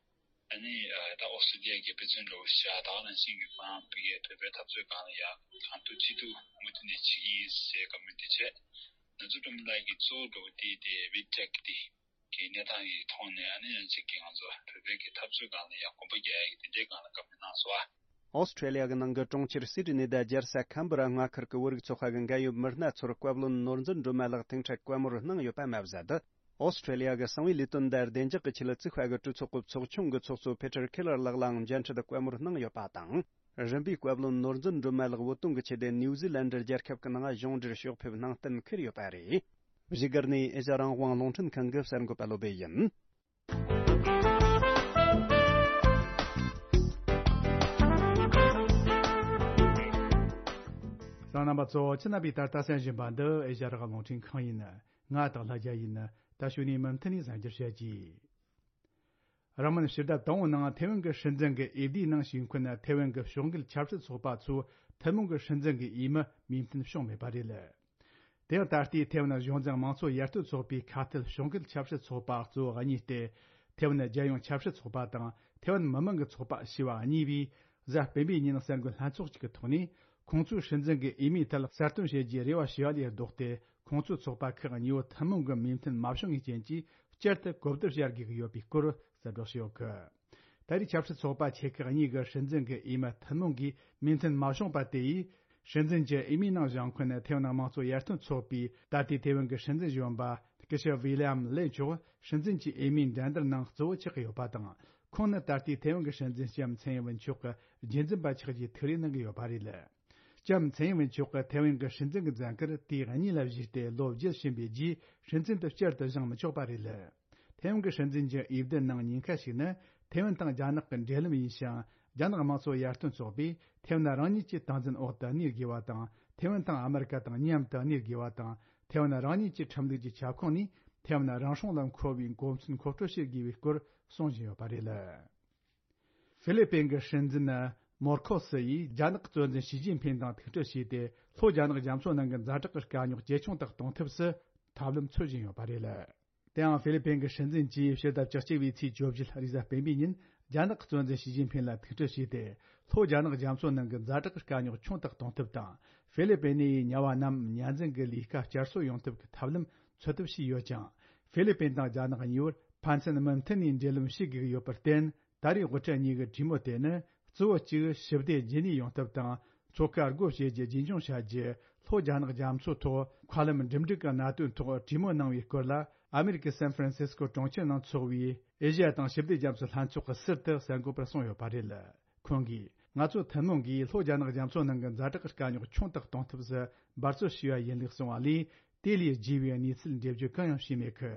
ཨ་ནི་ད་ཨོ་སི་ཀྲི་ལི་ཡ་གི་དཔེ་མཚོན་འདྲ་བོ་ཞིག་བཞག་ད་ག་ནང་བཞིན་གྱི་ཁོ་རང་ཕ་གིའི་བོད་པའི་འཐབ་རྩོད་སྒང་ལ་ཡ་གང་ཐུབ་ཅི་ཐུབ་མུ་མཐུད་ནས་བྱེད་ཀྱི་ཡིན་ཟེར་བཀའ་མོལ་དེ་བྱས། ནོར་འཛིན་སྒྲོལ་མ་ལགས་ཀྱིས་གཙོ་བོ་འདྲ་བོ་དེ་དེ་ཝི་ཊེག་དེ་གི་གནས་སྟངས་ཀྱི་ཐོག་ནས་ཨ་ནི་ཡང་ཅིག་གི་ང་ཚོ་བོད་པའི་གི་འཐབ་རྩོད་སྒང་ལ་ཡ་གོམ་པ་རྒྱག་ཡ་གི་དེ་འདྲའི་སྒང་ལ་བཀའ་མོལ་གནང་སོང་ཨ། ཨོ་སི་ཁྲེ་ལི་ཡ་གི་ནང་གི་གྲོང་ཁྱེར་སིད་ནི་དང་རྒྱལ་ས་ཁམ་བུ་ར་མངའ་ཁུལ་གྱི་བོད་རིགས་ཚོགས་པ་གི་འགན་ཡོད་མི་སྣ་ཚོར་བཀའ་བློན་ནོར་འཛིན་སྒྲོལ་མ་ལགས་ཐེངས་འཕྲལ་བཀའ་མོལ་གནང་ཡོད་པ་མ་ཟད། ཨོ་སི་ཁྲེ་ལི་ཡ་གི་གསང་བའི་ལས་དོན་དང་བདེ་འཇགས་ཀྱི་ཆེད་ལ་བཙུགས་པ་གི་གྲོས་ཚོགས་ཀྱི་ཚོགས་ཆུང་གི་ཚོགས་གཙོ་ཕེ་ཏྲར་ཁེ་ལར་ལགས་ལའང་མཇལ་འཕྲད་བཀའ་མོལ་གནང་ཡོད་པ་དང་། རིམ་པས་བཀའ་བློན་ནོར་འཛིན་སྒྲོལ་མ་ལགས་བོད་དོན་གྱི་ཆེད་དུ་ནིའུ་ཛི་ལན་ཌི་རྒྱལ་ཁབ་ཀྱི་ནང་གཞུང་འབྲེལ་ཕྱོགས་ཕེབས་གནང་གཏན་འཁེལ་ཡོད་པ་རེད། བཞུགས་སྒར་ནས་ཨེ་ཤ་རང་དབང་རླུང་འཕྲིན་ཁང་གི་གསར་འགོད་པ་བློ་བྷེ་ཡིན། གསན་མཁན་རྣམ་པ་ཚོ་ཁྱེད་རྣམ་པས་ད་ལྟ་གསན་བཞིན་པ་འདི་ཨེ་ཤ་རང་དབང་རླུང་འཕྲིན་ཁང་ཡིན། ང་སྟག་ལྷ་རྒྱལ་ཡིན། ད་གཞུག་ནས་མུ་མཐུད་ནས་གསན་རྒྱུར་བྱེད་ཀྱིས། རིང་མིན་ཕྱི་ཟླ་དང་པོའི་ནང་ཐེ་ཝན་གྱི་སྲིད་འཛིན་གྱི་འོས་བསྡུའི་ནང་ཞུགས་མཁན་ཐེ་ཝན་གྱི་ཕྱོགས་འགལ་ཆབ་སྲིད་ཚོགས་པ་ཚོས་ཐུན་མོང་གི་སྲིད་འཛིན་གྱི་འོས་མི་མོས་མཐུན་བྱུང་མེད་པ་རེད། དེ་ཡང་ད་ལྟའི་ཐེ་ཝན་གཞུང་འཛིན་དམངས་གཙོ་ཡར་ཐོན་ཚོགས་པའི་ཁ་གཏད་ཕྱོགས་འགལ་ཆབ་སྲིད་ཚོགས་པ་གཙོ་བོ་གཉིས་ཏེ། ཐེ་ཝན་རྒྱལ་ཡོངས་ཆབ་སྲིད་ཚོགས་པ་དང་ཐེ་ཝན་མི་མང་གི་ཚོགས་པ་ཞེས་པ་གཉིས་པོས་གཟའ་སྤེན་པའི་ཉིན་གསར་འགོད་ལྷན་ཚོགས་ཤིག་གི་ཐོག་ནས་ཁོང་ཚོའི་སྲིད་འཛིན་གྱི་འོས་མིའི་ཐད་གསར་གཏོད་བྱེད་རྒྱུའི་རེ་བ་ཞུ་བ་ལས་ལྡོག་སྟེ། ཁོང་ཚོའི་ཚོགས་པ་ཁག་གཉིས་པོ་ཐུན་མོང་གི་མོས་མཐུན་མ་བྱུང་བའི་རྐྱེན་གྱིས་བསྐྱར་དུ་གོ་བསྡུར་བྱ་དགོས་ཀྱི་ཡོད་པའི་སྐོར་གསལ་བསྒྲགས་བྱས་ཡོད་གི། ད་རེས་ཆབ་སྲིད་ཚོགས་པ་ཆེ་ཁག་གཉིས་ཀྱི་སྲིད་འཛིན་གྱི་འོས་མི་ཐུན་མོང་གིས་མོས་མཐུན་མ་བྱུང་པ་དེ་ཡིས། སྲིད་འཛིན་གྱི་འོས་མིའི་ནང་བཞེངས་མཁན་ཐེ་ཝན་དམངས་གཙོ་ཡར་ཐོན་ཚོགས་པའི་ད་ལྟའི་ཐེ་ཝན་གྱི་སྲིད་འཛིན་གཞོན་པ་སྐུ་ཞབས་ཝི་ལི་ཡམ་ལེ་མཆོག་སྲིད་འཛིན་གྱི་འོས་མིའི་འགྲན་བསྡུར་ནང་གཙོ་བོ་ཆགས་ཀྱི་ཡོད་པ་དང་། ཁོང་ནི་ད་ལྟའི་ཐེ་ཝན་གྱི་སྲིད་འཛིན་ལྕམ་ཚའེ་ཡིན་ཝེན་མཆོག་གི་རྒྱུན་འཛིན་པ་ཆགས་རྒྱུའི་ཐུགས་རེ་གནང་གི་ཡོད་པ་རེད། ལྕམ་ཚའེ་ཡིན་ཝེན་མཆོག་གིས་ཐེ་ཝན་གྱི་སྲིད་འཛིན་གྱི་མཛད་ཁུར་དུས་གཉིས་ལ་བཞེས་ཏེ་ལོ་བརྒྱད་ཕྱིན་པའི་རྗེས་སྲིད་འཛིན་དུ་བསྐྱར་དུ་བཞེངས་མི་ཆོག་པ་རེད། ཐེ་ཝན་གྱི་སྲིད་འཛིན་གྱི་འོས་བསྡུ་ནང་ཉེན་ཁ་ཞིག་ནི་ཐེ་ཝན་དང་རྒྱ་ནག་གི་འབྲེལ་ལམ་ཡིན་ཞིང་། རྒྱ་ནག་དམངས་གཙོ་ཡར་ཐོན་ཚོགས་པས་ཐེ་ཝན་རང་ཉིད་ཀྱི་སྟངས་འཛིན་འོག་ཏུ་གནས་དགོས་པ་དང་། ཐེ་ཝན་དང་ཨ་མེ་རི་ཀ་དང་མཉམ་དུ་གནས་དགོས་པ་དང་། ཐེ་ཝན་རང་ཉིད་ཀྱི་ཁྲིམས་ལུགས་ཀྱི་ཁྱབ་ཁོངས་ནས་ཐེ་ཝན་རང་སྲུང་ལ་མཁོ་བའི་འགོ་མཚན་མཁོ་སྤྲོད་བྱེད་དགོས་པའི་སྐོར་གསུང་བཞིན་ཡོད་པ་རེད། ཧྥི་ལི་པིན་གྱི་སྲིད་འཛིན་མོར་ཁོ་སི་ཡིས་རྒྱ་ནག་གི་གཙོ་འཛིན་ཞི་ཅིན་ཕིན་དང་ཐུག་འཕྲད་བྱས་ཏེ། ལྷོ་རྒྱ་ནག་རྒྱ་མཚོ་ནང་གི་ཛ་དྲག་གི་དཀའ་རྙོག་ཇེ་ཆུང་དུ་གཏོང་ཐབས་སུ་ཐབས་ལམ་འཚོལ་བཞིན་ཡོད་པ་རེད། དེའང་ཧྥི་ལི་པིན་གྱི་སྲིད་འཛིན་གྱིས་ཕྱི་ཟླ་བཅུ་གཅིག་པའི་ཚེས་བཅུ་བཞི་རེས་གཟའ་སྤེན་པའི་ཉིན་རྒྱ་ནག་གི་གཙོ་འཛིན་ཞི་ཅིན་ཕིན་ལ་ཐུག་འཕྲད་བྱས་ཏེ། ལྷོ་རྒྱ་ནག་རྒྱ་མཚོ་ནང་གི་ཛ་དྲག་གི་དཀའ་རྙོག་ཆུང་དུ་གཏོང་ཐབས་དང་། ཧྥི་ལི་པིན་ནས་དམྱལ་བ་རྣམས་ཉར་འཛིན་གྱི་ལས་ཀ་བསྐྱར་གསོ་ཡོང་ཐབས་ཀྱི་ཐབས་ལམ་འཚོལ་ཐབས་བྱས་ཡོད་ཀྱང་། ཧྥི་ལི་པིན་དང་རྒྱ་ནག་གཉིས་བར་ཕན་ཚུན་མུ་མཐུད་ནས་འབྲེལ་ལམ་བྱེད་དགོས་ཀྱི་ཡོད་པར་བརྟེན། ད་རེས་དབུ་ཁྲིད་གཉིས་ཀྱི་གྲོས་མོལ་དེ་ནི། གཙོ་བོ་གཅིག་ཞི་བདེ་རྗེས་ནས་ཡོང་ཐབས་དང་། མཚོ་ཁ་སྒོ་ཕྱེ་རྒྱུ་རྒྱུན་འཁྱོངས་བྱ་རྒྱུ། ལྷོ་རྒྱ་ནག་རྒྱ་མཚོའི་ཐོག་མཁའ་ལམ་འགྲིམ་འགྲུལ་གྱི་གནད་དོན་ཐོག་གྲོས་མོལ་གནང་བའི་སྐོར་ལ། ཨ་མེ་རི་ཀའི་སན་ཧྥ་རན་སིས་ཀོ་གྲོང་ཁྱེར་ནང་འཚོགས་པའི་ཨེ་ཤི་ཡ་དང་ཞི་བདེ་རྒྱ་མཚོའི་ལྷན་ཚོགས་ཀྱི་ཟུར་དུ་གསར་འགོད་པར་གསུངས་ཡོད་པ་རེད། ཁོང་གིས། ང་ཚོ་ཐུན་མོང་གིས་ལྷོ་རྒྱ་ནག་རྒྱ་མཚོ་ནང་གི་ཛ་དྲག་གི་དཀའ་རྙོག་ཆུང་དུ་གཏོང་ཐབས་སུ་འབད་རྩོལ་བྱས་པ་ཡིན་ལུགས་གསུངས་པ་ལས། དེ་ལས་རྒྱས་པའི་གནས་ཚུལ་འགྲེལ་བརྗོད་གང་ཡང་བྱས་མེད་ཀི།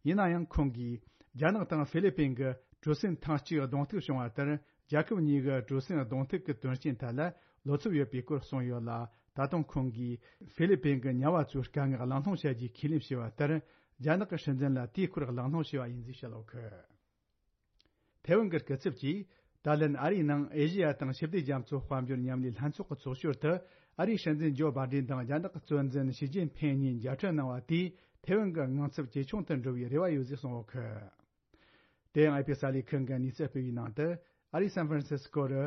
ཡིན་ན་ཡང་ཁོང་གིས། རྒྱ་ནག་དང་ཧྥི་ལི་པིན་གྱི་གྲོས་མཐུན་ཐེངས་གཅིག་གདོང་ཐུག་བྱུང་བ་ལྟར། རྒྱལ་ཁབ་གཉིས་ཀྱི་གྲོས་མཐུན་གདོང་ཐུག་གི་དོན་རྐྱེན་ཐད་ལ་བློ་འཚབ་ཡོད་པའི་སྐོར་གསུངས་ཡོད་ལ། ད་དུང་ཁོང་གིས་ཧྥི་ལི་པིན་གྱི་དམྱལ་བ་ཚོའི་དཀའ་ངལ་གླེང་སློང་བྱ་རྒྱུའི་ཁས་ལེན་བྱས་པ་ལྟར། རྒྱ་ནག་གི་སྲིད་འཛིན་ལ་དེའི་སྐོར་གླེང་སློང་བྱས་པ་ཡིན་ཟེར་བཤད་ཡོད་གི། ཐའེ་ཝན་གྱི་སྐུ་ཚབ་ཀྱིས། ད་ལན་ཨ་རིའི་ནང་ཨེ་ཤེ་ཡ་དང་ཞི་བདེ་རྒྱ་མཚོ་དཔལ་འབྱོར་མཉམ་ལས་ལྷན་ཚོགས་ཀྱི་ཚོགས་ཞོར་དུ། ཨ་རིའི་སྲིད་འཛིན་ཇོ་བྷ་ཌེན་དང་རྒྱ་ནག་གི་གཙོ་འཛིན་ཞི་ཅིན་ཕིང་གཉིས་མཇལ་འཕྲད་གནང་བ་དེས་ཐའེ་ཝན་གྱི་དངངས་འཚབ་ཇེ་ཆུང་དུ་འགྲོ་བའི་རེ་བ་ཡོད་ཅེས་གསུངས་ཡོད་ཀི། དེ་ཡང་ཨེ་པི་གསར་ལས་ཁང་གིས་གནས་ཚུལ་སྤེལ་བའི་ནང་དུ། ཨ་རིའི་སན་ཧྥ་རན་སིས་ཀོ་རུ།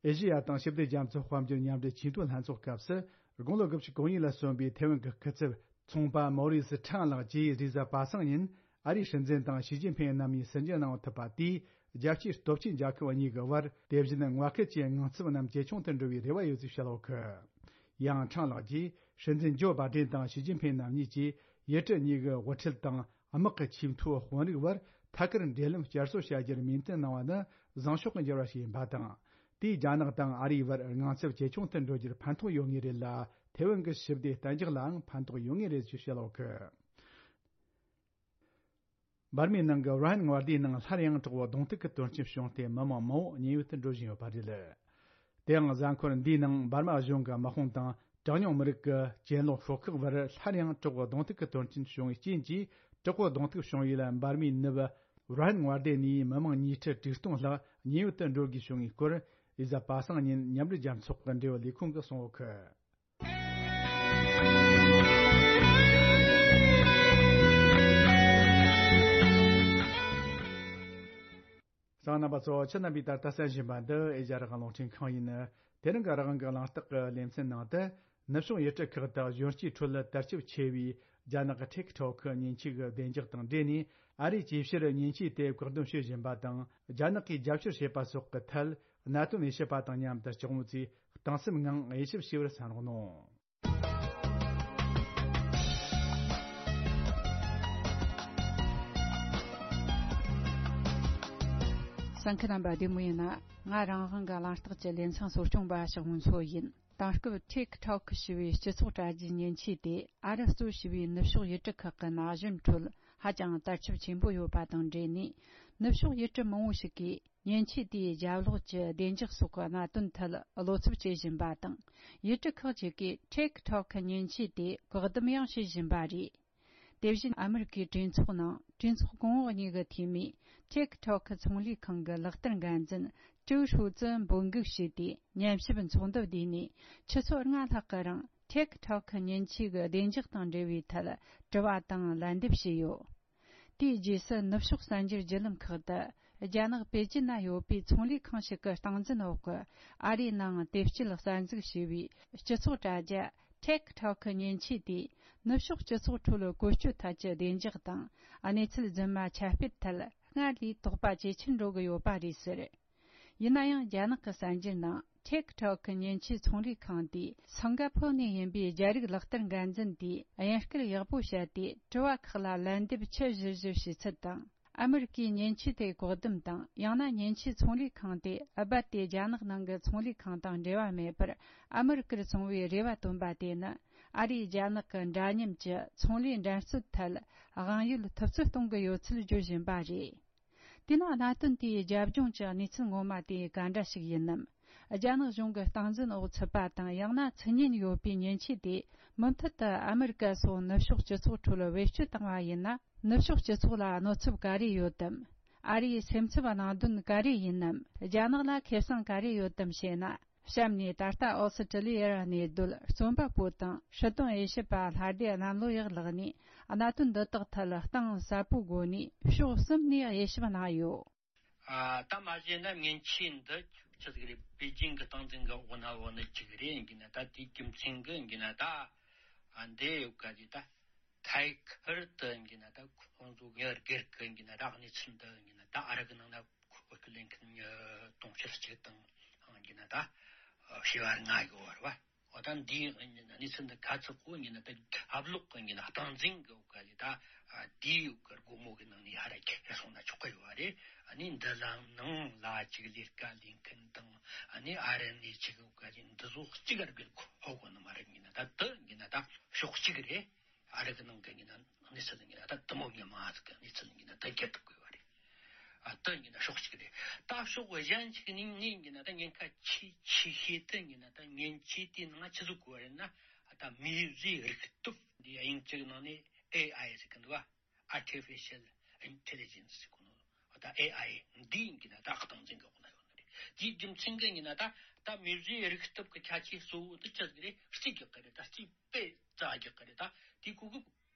ཨེ་ཤེ་ཡ་དང་ཞི་བདེ་རྒྱ་མཚོ་དཔལ་འབྱོར་མཉམ་འབྲེལ་ཆེས་མཐོའི་ལྷན་ཚོགས་སྐབས་སུ། དགུང་ལོ་དགུ་བཅུ་གོ་གཉིས་ལ་སོན་པའི་ཐའེ་ཝན་གྱི་སྐུ་ཚབ་ཚོང་པ་མོ་རི་སི་ཁྲང་ལགས་ཀྱིས་རེས་གཟའ་པ་སངས་ཉིན་ཨ་རིའི་སྲིད་འཛིན་དང་ཞི་ཅིན་ཕིང་རྣམ་གཉིས་ཟིན་བྲིས་གནང་ཐུབ་པ་དེས། རྒྱལ་སྤྱིའི་སྟོབས་ཆེན་རྒྱལ་ཁབ་གཉིས་ཀྱི་བར་དེ་བཞིན་མངའ་ཁུལ་གྱི་དངངས་འཚབ་རྣམས་ཇེ་ཆུང་དུ་འགྲོ་བའི་རེ་བ་ཡོད་ཅེས་བཤད་ཡོད་ཀི། ཡང་ཁྲང་ལགས་ཀྱིས་སྲིད་འཛིན་ཇོ་བྷ་ཌེན་དང་ཞི་ཅིན་ཕིང་རྣམ་གཉིས་ཀྱིས་ཡུལ་གྲུ་གཉིས་ཀྱི་དབུ་ཁྲིད་དང་དམག་གི་ཆེས་མཐོའི་དཔོན་རིགས་བར་ཐད་ཀར་འབྲེལ་ལམ་བསྐྱར་གསོ་བྱ་རྒྱུར་མོས་མཐུན་གནང་བ་ནི་བཟང་ཕྱོགས་ཀྱི་འགྱུར་བ་ཞིག་ཡིན་པ་དང་། དེས་རྒྱ་ནག་དང་ཨ་རིའི་བར་དངངས་འཚབ་ཇེ་ཆུང་དུ་འགྲོ་རྒྱུར་ཕན་ཐོགས་ཡོད་ངེས་རེད་ལ། ཐའེ་ཝན་གྱི་ཞི་བདེ་གཏན་འཇགས་ལའང་ཕན་ཐོགས་ཡོད་ངེས་རེད་ཅེས་བཤད་ཡོད་ཀི། འབར་མའི་ནང་གི་ར་ཧན་མངའ་སྡེའི་ནང་སླར་ཡང་དྲག་པོ་གདོང་ཐུག་གི་དོན་རྐྱེན་བྱུང་སྟེ། མི་མང་མང་བོ་མཉན་ཡོད་དུ་འགྲོ་བཞིན་ཡོད་པ་རེད། དེའང་གཟའ་འཁོར་འདིའི་ནང་འབར་མ་གཞུང་གི་དམག་དཔུང་དང་གྲངས་ཉུང་མི་རིགས་ཀྱི་གྱེན་ལོག་ཤོག་ཁག་བར་སླར་ཡང་དྲག་པོ་གདོང་ཐུག་གི་དོན་རྐྱེན་བྱུང་བའི་རྐྱེན་གྱིས། དྲག་པོ་གདོང་ཐུག་བྱུང་བའི་ལ་འབར་མའི་ནུབ་ར་ཧན་མངའ་སྡེ་ནས་མི་མང་ཉིས་ཁྲི་དྲུག་སྟོང་ལྷག་མཉན་ཡོད་དུ་འགྲོ་དགོས་བྱུང་བའི་སྐོར། རེས་གཟའ་པ་སངས་ཉིན་མཉམ་འབྲེལ་རྒྱལ་ཚོགས་ཀྱི་འབྲེལ་ཡོད་ལས་ཁུངས་ཀྱིས་གསུངས་ཡོད་ཀི། གསན་མཁན་རྣམ་པ་ཚོ། ཁྱེད་རྣམ་པས་ད་ལྟ་གསན་བཞིན་པ་འདི་ཨེ་ཤ་ཡ་རང་དབང་རླུང་འཕྲིན་ཁང་ཡིན། དེ་རིང་གི་རང་དབང་གི་གླེང་སྟེགས་ཀྱི་ལེ་ཚན་ནང་དུ། ནུབ་ཕྱོགས་ཡུལ་གྲུ་ཁག་དང་གཞོན་སྐྱེས་ཁྲོད་དར་ཁྱབ་ཆེ་བའི་རྒྱ་ནག་གི་ཊིག་ཊོག་གི་མཉེན་ཆས་ཀྱི་བདེ་འཇགས་དང་འབྲེལ་ནས། ཨ་རིས་ཇེ་ཆེར་མཉེན་ཆས་དེ་བཀག་སྡོམ་བྱེད་བཞིན་པ་དང་། རྒྱ་ནག་གིས་རྒྱབ་སྐྱོར་བྱེད་པ་སོགས་ཀྱི་ཐད། གནད་དོན་དབྱེ་ཞིབ་པ་དང་མཉམ་དུ་ལྕགས་མོ་ཚོས་གཏིང་ཟབ་ངང་དབྱེ་ཞིབ་བྱས་པར་གསན་རོགས་གནང་། གསན་མཁན་རྣམ་པ་བདེ་མོ་ཡིན་ན། ང་རང་དབང་གི་གླེང་སྟེགས་ཀྱི་ལེ་ཚན་གཙོ་སྐྱོང་པ་ཞག་མོ་མཚོ་ཡིན། དེང་སྐབས་ཊིག་ཊོག་ཞེས་པའི་སྤྱི་ཚོགས་དྲ་རྒྱའི་མཉེན་ཆས་དེ་ཨ་རི་གཙོས་བྱས་པའི་ནུབ་ཕྱོགས་ཡུལ་གྲུ་ཁག་གི་ན་གཞོན་ཁྲོད་ཧ་ཅང་དར་ཁྱབ་ཆེན་པོ་ཡོད་པ་དང་འབྲེལ་ནས། ནུབ་ཕྱོགས་ཡུལ་གྲུ་མང་བོ་ཞིག་གིས་མཉེན་ཆས་དེའི་རྒྱབ་ལོགས་ཀྱི་བདེ་འཇགས་སོགས་ཀྱི་གནད་དོན་ཐད་བློ་འཚབ་བྱེད་བཞིན་པ་དང་། ཡུལ་གྲུ་ཁག་ཅིག་གིས་ཊིག་ཊོག་གི་མཉེན་ཆས་དེ་བཀག་སྡོམ་ཡང་བྱེད་བཞིན་པ་རེད། དེ་བཞིན་ཨ་མི་རི་ཀའི་གྲོས་ཚོགས་ནང་གྲོས་ཚོགས་གོང་འོག་གཉིས་ཀྱི་འཐུས་མིས་ཊིག་ཊོག་གི་ཚོང་ལས་ཁང་གི་ལག་བསྟར་འགན་འཛིན་ཀྲུའུ་ཧྲུའུ་ཙི་འབོད་འགུག་བྱས་ཏེ། ཉམས་ཞིབ་ཚོགས་འདུ་བསྡུས་ནས་ཆུ་ཚོད་ལྔ་ལྷག་གི་རིང་ཊིག་ཊོག་གི་མཉེན་ཆས་ཀྱི་བདེ་འཇགས་དང་འབྲེལ་བའི་ཐད་དྲི་བ་དང་ལན་འདེབས་བྱས་ཡོད། དེའི་རྗེས་སུ་ནུབ་ཕྱོགས་གསར་འགྱུར་བརྒྱུད་ལམ་ཁག་ཏུ། རྒྱ་ནག་པེ་ཅིན་ན་ཡོད་པའི་ཚོང་ལས་ཁང་ཞིག་གི་སྟངས་འཛིན་འོག་གི་ཨ་རིའི་ནང་དེབ་སྐྱེལ་གསར་འཛུགས་བྱས་པའི་སྤྱི་ཚོགས་དྲ་རྒྱ་ཊིག་ཊོག་གི་མཉེན་ཆས་དེས་ནུབ་ཕྱོགས་སྤྱི་ཚོགས་ཁྲོད་བཀོལ་སྤྱོད་ཐད་ཀྱི་བདེ་འཇགས་དང་གནས་ཚུལ་རྫུན་མ་ཁྱབ་སྤེལ་ཐད་སྔར་ལས་དོགས་པ་ཇེ་ཆེར་འགྲོ་གི་ཡོད་པ་རེད་ཟེར། ཡིན་ན་ཡང་རྒྱ་ནག་གི་གསར་འགྱུར་ནང་ཊིག་ཊོག་གི་མཉེན་ཆས་ཚོང་ལས་ཁང་དེས་སིང་ག་ཕོར་ནས་ཡིན་པའི་རྒྱ་རིགས་ལག་བསྟར་འགན་འཛིན་དེས་དབྱིན་སྐད་ཡག་པོ་བཤད་དེ་དྲི་བ་ཁག་ལ་ལན་འདེབས་ཆུ་བཞུར་བཞུར་བྱས་ཚུལ་དང་། ཨ་མི་རི་ཀའི་མཉེན་ཆས་དེ་བཀག་སྡོམ་དང་། ཡང་ན་མཉེན་ཆས་ཚོང་ལས་ཁང་དེ་རྦད་དེ་རྒྱ་ནག་ནང་གི་ཚོང་ལས་ཁང་དང་འབྲེལ་བ་མེད་པར་ཨ་མི་རི་ཀར་བཙོང་བའི་རེ་བ་བཏོན་པ་དེ་ནི། ཨ་རིས་རྒྱ་ནག་གི་འདྲ་མཉམ་གྱི་ཚོང་ལས་འགྲན་རྩོད་ཐད་དབང་ཡོད་ཐུབ་ཚོད་གཏོང་གི་ཡོད་ཚུལ་བརྗོད་བཞིན་པ་རེད། དེ་ནང་གནད་དོན་དེའི་རྒྱབ་ལྗོངས་ཀྱི་གནས་ཚུལ་ངོ་མ་དེ་ག་འདྲ་ཞིག་ཡིན་ནམ། རྒྱ་ནག་གཞུང་གི་སྟངས་འཛིན་འོག་ཚུད་པ་དང་། ཡང་ན་མཚན་སྙན་ཡོད་པའི་མཉེན་ཆས་དེ་མུ་མཐུད་དུ་ཨ་མི་རི་ཀ་སོགས་ནུབ་ཕྱོགས་སྤྱི་ཚོགས་ཁྲོད་བེད་སྤྱོད་བཏང་བ་ཡིན་ན། ནུབ་ཕྱོགས་སྤྱི་ཚོགས་ལ་གནོད་ཚབས་ག་རེ་ཡོད་དམ། ཨ་རིའི་སེམས་འཚབ་གནང་དོན་ག་རེ་ཡིན་ནམ། རྒྱ་ནག་ལ་ཁེ་བཟང་ག་རེ་ཡོད་དམ་ཞེ་ན། གཤམ་ནས་ད་ལྟ་ཨོ་སི་ཀྲི་ལི་ཡར་གནས་སྡོད་རྩོམ་པ་པོ་དང་སྲིད་དོན་དབྱེ་ཞིབ་པ་ལྷ་སྡེ་གནམ་ལོ་ཡག་ལགས་ནས་གནད་དོན་འདི་དག་ཐད་གཏིང་ཟབ་པོའི་སྒོ་ནས་ཕྱོགས་གསུམ་ནས་དབྱེ་ཞིབ་གནང་ཡོད། ཨ། ད་མ་གཞི་ན་མཉེན་ཆས་འདི་ཆི་ཟིག་རེད། པེ་ཅིང་གི་སྟངས་འཛིན་གི་འོག་ན་འོག་ནི་ཅིག་རེད་ཡིན་གྱི་ན། ད་དེའི་རྒྱུ་མཚན་གི་ཡིན་གྱི་ན། ད་ཨ་འདི་ཡོད་ག་ཅིག་ད་ཐད་ཀར་དུ་ཡིན་གྱི་ན། ད་ཁོང་ཚོ་ངའི་སྒེར་གི་ཡིན་གྱི་ན། ད་གནས་ཚུལ་འདི་ཡིན་གྱི་ན། ད་ཨ་རི་གི་ནང་ན་ཁོ་ལེན་མཁན་མི་དུང་ཕྱུར་གཅིག་དང་ཡིན་གྱི་ན། ད་བྱེ་བ་ལྔ་ཡོད་རེད་བ། འོ་ད་འདིའི་གནས་ཚུལ་འདི་ག་ཚོད་གོ་ཡིན་ན། ད་ཨབ་ལོག་གི་ཡིན་ན་སྟངས་འཛིན་གི་འོག་ག་ལས། ད་དེའི་འོག་གི་སྒོ་མོ་གི་ནང་ནས་ཧ་ར་ཁྱེར་སོང་ན་ཆོག་གི་ཡོད་རེད། ཨ་ནི་འདི་ལ་ནང་ལ་ཅིག་ལས་ཀ་ལས་མཁན་དང་། ཨ་ནི་ཨ་རི་ནས་ཅིག་འོག་ག་ལས་འདི་ཚོ་གཅིག་ག་ར་བེད་ཁོ་ཧོ་གོ་ནི་མ་རེད་ཡིན་ན། ད་དེ་ཡིན་ན་ད་ཕྱོགས་གཅིག་རེད། ཨ་རི་གི་ནང་གི་ཡིན་ན་གནས་ཚུལ་ཡིན་ན། ད་དེ་མོ་ཉི་མ་ཟིག་གི་གནས་ཚུལ་ཡིན་ན་ད་རྒྱབ་ཐུབ་དགོས་པ་རེད། ཨ་དེ་ཡིན་ན་ཕྱོགས་གཅིག་རེད། ད་ཕྱོགས་གཞན་ཞིག་ནས་ངས་ཡིན་ན་ད་ཉེན་ཁ་ཆེ་ཆེ་ཤོས་དེ་ཡིན་ན། ད་མཉེན་ཆས་དེའི་ནང་ཆི་ཟིག་དགོས་པ་རེད་ན། ད་མིའི་རིག་སྟོབས་འདི། དབྱིན་ཇིའི་ནང་ནས་ཨེ་ཨའི་ཟེར་གི་འདུག་བ། Artificial Intelligence ཟེར་གི་ནོ། ད་ཨེ་ཨའི་འདི་ཡིན་གྱི་ན་ད་སྟངས་འཛིན་གྱི་འོག་ན་ཡོད་ནི་རེད། དེའི་རྒྱུ་མཚན་གྱིས་ཡིན་ན་ད་ད་མི་རིགས་རིག་སྟོབས་ཀྱི་ཁྱད་ཆོས་གཙོ་བོ་དེ་ཅི་ཟིག་རེད། རྩིས་རྒྱག་གི་རེད། ད་རྩིས་དཔེ་རྩ་རྒྱག་གི་རེད། ད་དེའི་གོ་སྐབས་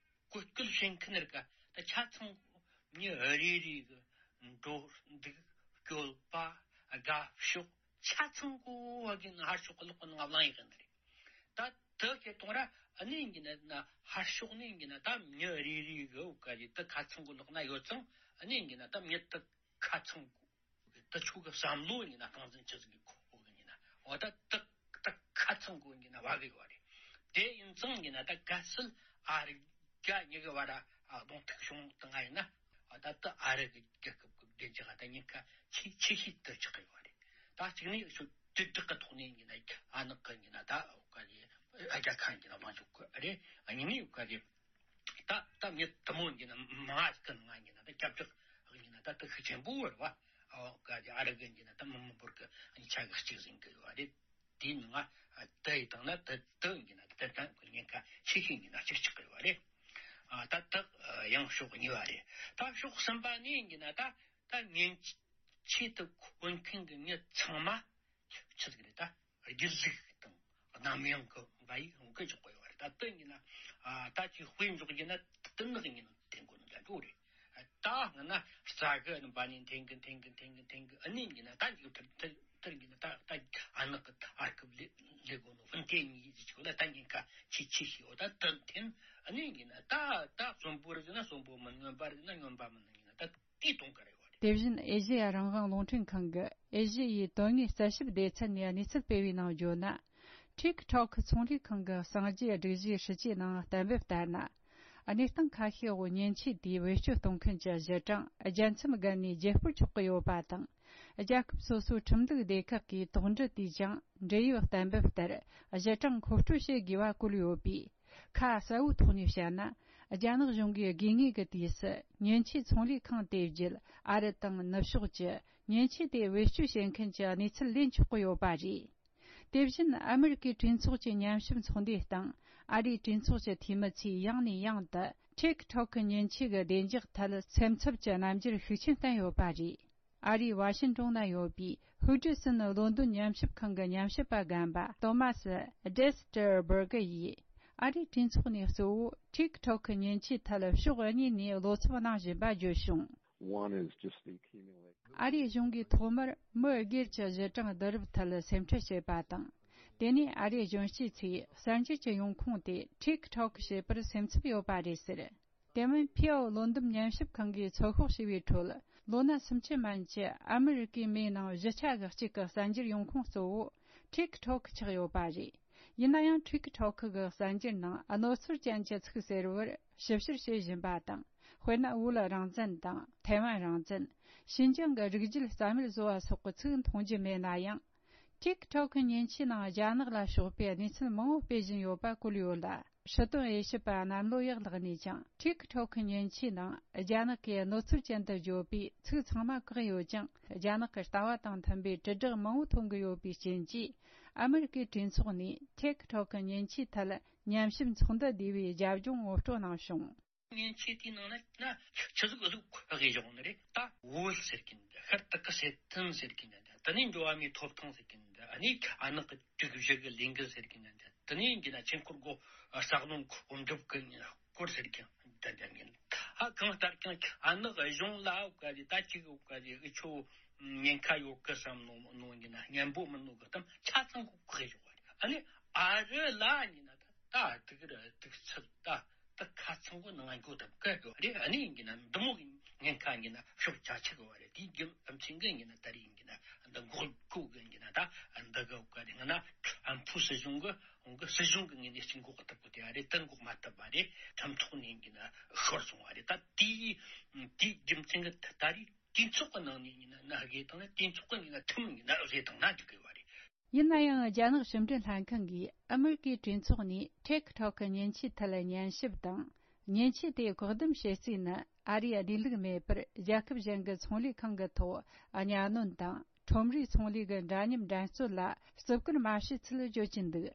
གོ་སྐབས་བྱེད་མཁན་རིགས་ད་ཆ་ཚང་མྱི་རེ་རེ་གི་འགྲོ་འདུག་སྤྱོད་པ་དགའ་ཕྱོགས་ཆ་ཚང་གོ་བ་གི་ན་ཧར་ཕྱོགས་གི་ལོག་གི་ནང་བླངས་ཡོད་གི་ནི་རེད། ད་དེ་ཁྱེད་གཏོང་ར་ཨ་ནི་ཡིན་གྱི་ན་ན་ཧར་ཕྱོགས་ནས་ཡིན་གྱི་ན་ད་མྱི་རེ་རེ་གི་འོ་ག་རེ་ད་ཁ་ཚང་གི་ལོག་ན་ཡོད་ཙང་ཨ་ནི་ཡིན་གྱི་ན་ད་མྱི་ད་ཁ་ཚང་གི་ད་ཆོས་གི་བསམ་བློ་ཡིན་ན་སྟངས་འཛིན་ཆི་ཟིག་གི་གོ་གི་ཡིན་ན་འོ་ད་ད་ད་ཁ་ཚང་གི་ཡིན་གྱི་ན་བ་གི་ཡོད་རེད། དེ་ཡིན་ཙང་ཡིན་ན་ད་གལ་སྲིད་ཨ་རི་རྒྱ་གཉིས་ཀྱི་བར་ཨ་གདོང་ཐུག་བྱུང་དང་ང་ཡིན་ན་ཨ་ད་ད་ཨ་རི་གི་རྒྱལ་ཁབ་ཀྱི་བདེ་འཇགས་ད་ཉེན་ཁ་ཆེ་ཆེ་ཤོས་དེ་ཆགས་ཀྱི་ཡོད་རེད། ད་གཅིག་ནས་ཤོད་དྲིལ་བསྒྲགས་ཀྱི་ཐོག་ནས་ཡིན་ན་ཨ་ནག་གི་ཡིན་ན་ད་འོ་ག་རེ་ཨ་རྒྱ་ཁ་ཡིན་ན་ལངས་ཆོག་གི་རེད། ཨ་གཉིས་ནས་འོ་ག་རེ་ད་ད་མི་དུ་མོ་ཡིན་ན་མང་ང་ཡིན་ན་ད་སྐྱབས་བཅོལ་ཡིན་ན་ད་དུ་ཤུགས་ཆེན་པོ་རེད་བ། འོ་ག་རེ་ཨ་རི་གི་ཡིན་ན་ད་མི་མི་འབོར་གི་ཆ་གི་གཅིག་ཟིན་གི་ཡོད་རེད། དེའི་ནང་ང་དེ་ཡི་སྟེང་ན་དེ་དེ་ཡིན་ན་དེ་དང་གི་ཉེན་ཁ་ཆེ་ཤོས་ཡིན་ན་གཅིག་ཆགས་ཀྱི་ཡོད་རེད། ཨ་ད་དེ་ཡང་ཕྱོགས་གཉིས་པ་རེད། ད་ཕྱོགས་གསུམ་པ་ནས་ཡིན་ན་ད་ད་ཉེན་ཆེད་དུ་འཁོད་མཁན་གྱི་མྱི་ཚང་མ་ཆི་ཟིག་རེད། ད་སྒྱིད་ལུག་དང་གནམ་ཡངས་ཀྱི་འབའ་ཡིག་འོང་གི་འཇོག་གི་ཡོད་རེད། ད་དེ་ཡིན་ན་ཨ་ད་ཅིག་དཔེ་འཇོག་རྒྱུ་ན་དེ་ནག་ཡིན་ན་དེ་མགོ་ནས་རྒྱག་རྒྱུ་རེད། ད་སྔ་ན་རྩ་གི་འབའ་ནས་འཐེན་གི་འཐེན་གི་འཐེན་གི་འཐེན་གི་ཨ་ནི་ཡིན་ན་ད་འཇིག་ཐིར་ཐིར་ཐིར་ཡིན་ན་ད་ད་ཨ་ནག་གི་ཨར་ཀི་ལས་ལས་དགོས་ནོ་ཧྥུན་ཏེ་གཉིས་ཀྱི་ཆོག་ལ་ད་ཉེན་ཁ་ཆེ་ཆེ་ཤི་འོ་ད་ད་འཐེན་ཨ་ནི་ཡིན་ན་ད་ད་གསོན་པོ་རིག་ན་གསོན་པོ་མིན། རྔོན་པ་རིག་ན་རྔོན་པ་མིན་ཡིན་ན་ད་དེ་གཏོང་གི་རེད་བ་རེད། དེ་བཞིན་ཨེ་ཤེ་ཡ་རང་དབང་རླུང་འཕྲིན་ཁང་གི་ཨེ་ཤེ་ཡའི་དོན་དངོས་རྩད་ཞིབ་སྡེ་ཚན་ནས་གནས་ཚུལ་སྤེལ་བའི་ནང་བརྗོད་ན། ཊིག་ཊོག་ཚོང་ལས་ཁང་གི་གསང་རྒྱུའི་སྒྲིག་གཞིའི་སྲིད་ཇུས་ནང་གཏན་འབེབས་ལྟར་ན། གནས་སྟངས་ཁ་ཤས་འོག་ཉེན་ཆེ་དེའི་བེད་སྤྱོད་གཏོང་མཁན་གྱི་གཞི་གྲངས་རྒྱལ་མཚམས་བརྒལ་ནས་བརྗེ་སྤོར་ཆོག་གི་ཡོད་པ་དང་། རྒྱལ་ཁབ་སོ་སོའི་ཁྲིམས་ལུགས་སྡེ་ཁག་གིས་དོགས་འདྲི་དུས་ཀྱང་འབྲེལ་ཡོད་གཏན་འབེབས་ལྟར་གཞི་གྲངས་མཁོ་སྤྲོད་བྱེད་དགོས་པ་བཀོད་ཡོད་པས། ཁ་གསལ་བོའི་ཐོག་ནས་བཤད་ན། རྒྱ་ནག་གཞུང་གིས་དགོས་ངེས་ཀྱི་དུས་སུ་ཉེན་ཆེའི་ཚོང་ལས་ཁང་དེ་བརྒྱུད་ཨ་རི་དང་ནུབ་ཕྱོགས་ཀྱི་ཉེན་ཆེ་དེ་བེད་སྤྱོད་བྱེད་མཁན་གྱི་གནས་ཚུལ་ལེན་ཆོག་གི་ཡོད་པ་རེད། དེ་བཞིན་ཨ་མི་རི་ཀའི་གྲོས་ཚོགས་ཀྱི་ཉམས་ཞིབ་ཚོགས་འདུའི་སྟེང་ཨ་རིའི་གྲོས་ཚོགས་ཀྱི་འཐུས་མི་ཚོས་ཡང་ནས་ཡང་དུ་ཊིག་ཊོག་གི་ཉེན་ཆེ་གི་བདེ་འཇགས་ཐད་སེམས་འཚབ་ཀྱི་རྣམ་འགྱུར་ཤུགས་ཆེན་བསྟན་ཡོད་པ་རེད། ཨ་རིའི་ཝ་ཤིན་ཀྲུང་ན་ཡོད་པའི་ཧུའུ་ཀྲི་སིན་ལོན་ཏོན་ཉམས་ཞིབ་ཁང་གི་ཉམས་ཞིབ་པ་རྒན་པ་ཏོ་མ་སི་ཌེ་སི་ཏེར་སྦུར་གི་ཡིས་ཨ་རིའི་གྲོས་ཚོགས་ནས་གཙོ་བོ་ཊིག་ཊོག་གི་ཉེན་ཆེའི་ཐད་ཕྱོགས་གཉིས་ནས་བློ་འཚབ་གནང་བཞིན་པ་བརྗོད་བྱུང་། One is just the accumulation. ཨ་རིའི་གཞུང་གིས་ཐོག་མར་མི་སྒེར་གྱི་གཞི་གྲངས་བསྡུ་རུབ་ཐད་སེམས་ཁྲལ་བྱེད་པ་དང་། དེ་ནས་ཨ་རིའི་གཞོན་སྐྱེས་ཚོས་གསར་འགྱུར་གྱི་ཡོང་ཁུངས་དེ་ཊིག་ཊོག་བྱེད་པར་སེམས་འཚབ་ཡོད་པ་རེད་ཟེར། དེ་མིན་ཕིའོ་ལོན་འདེམས་ཉམས་ཞིབ་ཁང་གིས་ཚོད་དཔོག་བྱས་པའི་ཁྲོད། ལོ་ན་སུམ་ཅུ་མན་གྱི་ཨ་མི་རི་ཀའི་མིའི་ནང་བཞི་ཆ་གི་གཅིག་གི་གསར་འགྱུར་ཡོང་ཁུངས་གཙོ་བོ་ཊིག་ཊོག་ཆགས་ཡོད་པ་རེད། ཡིན་ན་ཡང་ཊིག་ཊོག་གི་གསར་འགྱུར་ནང་གནོད་འཚེ་ཅན་གྱི་ཚིག་ཟེར་བར་ཞིབ་བཤེར་བྱེད་བཞིན་པ་དང་། དཔེར་ན་བོད་རང་བཙན་དང་ཐའེ་ཝན་རང་བཙན། ཞིན་ཅང་གི་རིགས་རྒྱུད་རྩ་མེད་བཟོ་བ་སོགས་ཀྱི་ཚིག་མཐོང་རྒྱུ་མེད་ན་ཡང་། ཊིག་ཊོག་གི་ཉེན་ཆེའི་ནང་རྒྱ་ནག་ལ་ཕྱོགས་པའི་གནས་ཚུལ་མང་བོ་སྤེལ་བཞིན་ཡོད་པ་བཀོད་ཡོད་ལ། སྲིད་དོན་དབྱེ་ཞིབ་པ་གནམ་ལོ་ཡག་ལགས་ནས་ཀྱང་ཊིག་ཊོག་གི་ཉེན་ཆེའི་ནང་རྒྱ་ནག་གིས་གནོད་འཚེ་ཅན་དུ་བརྗོད་པའི་ཚིག་ཚང་མ་བཀག་ཡོད་ཀྱང་། རྒྱ་ནག་གི་ལྟ་བ་དང་མཐུན་པའི་དྲིལ་བསྒྲགས་མང་བོ་ཐོན་གྱི་ཡོད་པའི་རྐྱེན་གྱིས། ཨ་མི་རི་ཀའི་གྲོས་ཚོགས་ནས་ཊིག་ཊོག་གི་ཉེན་ཆེའི་ཐད་ཉམས་ཞིབ་ཚོགས་འདུ་བསྡུས་པའི་རྒྱབ་ལྗོངས་ངོ་སྤྲོད་གནང་བྱུང་། ཉེན་ཆེ་དེའི་ནང་ན་ན་ཆི་ཟིག་ཟིག་ཁག་གི་བཞག་ནི་རེད། ད་བོད་ཟེར་གིན་འདི་ཤར་དུ་གི་སེ་ཐན་ཟེར་གིན་འདི་དེ་ནས་འགྲོ་བ་མིའི་ཐོབ་ཐང་ཟེར་གིན་འདི་ཨ་ནི་ཨ་ནག་གི་དྲུག་བཞི་གི་ལས་འགུལ་ཟེར་གིན་འདི་དེ་ནས་འདི་ན་ཆེན་ཁོར་གོ་ས་གནོན་གོ་འགྲུབ་གི་སྐོར་ཟེར་གིན་འདི་འདི་ཡིན། ཨ་གང་ལྟར་ཀྱང་ཨ་ནག་གཞུང་ལ་འོ་ག་རེ་ད་ཅིག་འོ་ག་རེ་ཨི་ཆོ་ཉེན་ཁ་ཡོད་གི་བསམ་ནོ་ནོ་ཡིན་ན་སྙན་པོ་མིན་ནོ་གི་གཏམ་ཆ་ཚང་གོ་གི་ཡོད་རེད། ཨ་ནི་ཨ་རི་ལ་ཡིན་ན་ད་ད་དུག་ར་དུག་ཚབ་ད། ད་ཁ་ཚང་གི་ནང་འགོ་ད་བཀའ་གི་རེད། ཨ་ནི་ཡིན་གྱི་ན་འདི་མོ་གི་ཉེན་ཁ་ཡིན་གྱི་ན་ཤོག་ཆ་ཆེ་གི་བ་རེད། དེའི་རྒྱུ་ཨམ་ཆིན་གི་ཡིན་གྱི་ན་ད་རེས་ཡིན་གྱི་ན་འདི་འགོག་གོ་གི་ཡིན་གྱི་ན་ད་འདི་གི་བཀའ་རེད། ང་ན་ཨམ་ཕུ་སྲིད་གཞུང་གི་འོང་གི་སྲིད་གཞུང་གི་ངོས་ནས་ཅིག་འགོག་ཐུབ་གི་དེ་བ་རེད། ད་འགོག་མ་ཐུབ་པ་རེད། ཁྲིམས་ཐོག་ནས་ཡིན་གྱི་ན་ཤོར་སོང་བ་རེད། ད་དེའི་དེའི་རྒྱུ་མཚན་གི་ད་རེས་དུས་ཚོགས་གི་ནང་ནས་ཡིན་ན་ན་དགེ་དང་ན་དུས་ཚོགས་གི་ཡིན་ན་ཐུམ་ཡིན་ན་བཟོས་དང་ན་འཇུག་གི་བ་རེད། ཡིན་ན་ཡང་རྒྱ་ནག་ཕྱི་འབྲེལ་ལྷན་ཁང་གིས་ཨ་མི་རི་ཀའི་གྲོས་ཚོགས་ནས་ཊིག་ཊོག་གི་ཉེན་ཆེའི་ཐད་ཉན་ཞིབ་དང་། ཉེན་ཆེ་དེ་བཀག་སྡོམ་བྱེད་རྩིས་ནི་ཨ་རིའི་བདེ་ལུགས་མེད་པར་རྒྱལ་ཁབ་གཞན་གྱི་ཚོང་ལས་ཁང་གི་ཐོག་གཉའ་གནོན་དང་ཁྲོམ་རའི་ཚོང་ལས་ཀྱི་འདྲ་མཉམ་འགྲན་རྩོད་ལ་བརྩི་བཀུར་མ་བྱས་ཚུལ་བརྗོད་ཀྱིན་འདུག་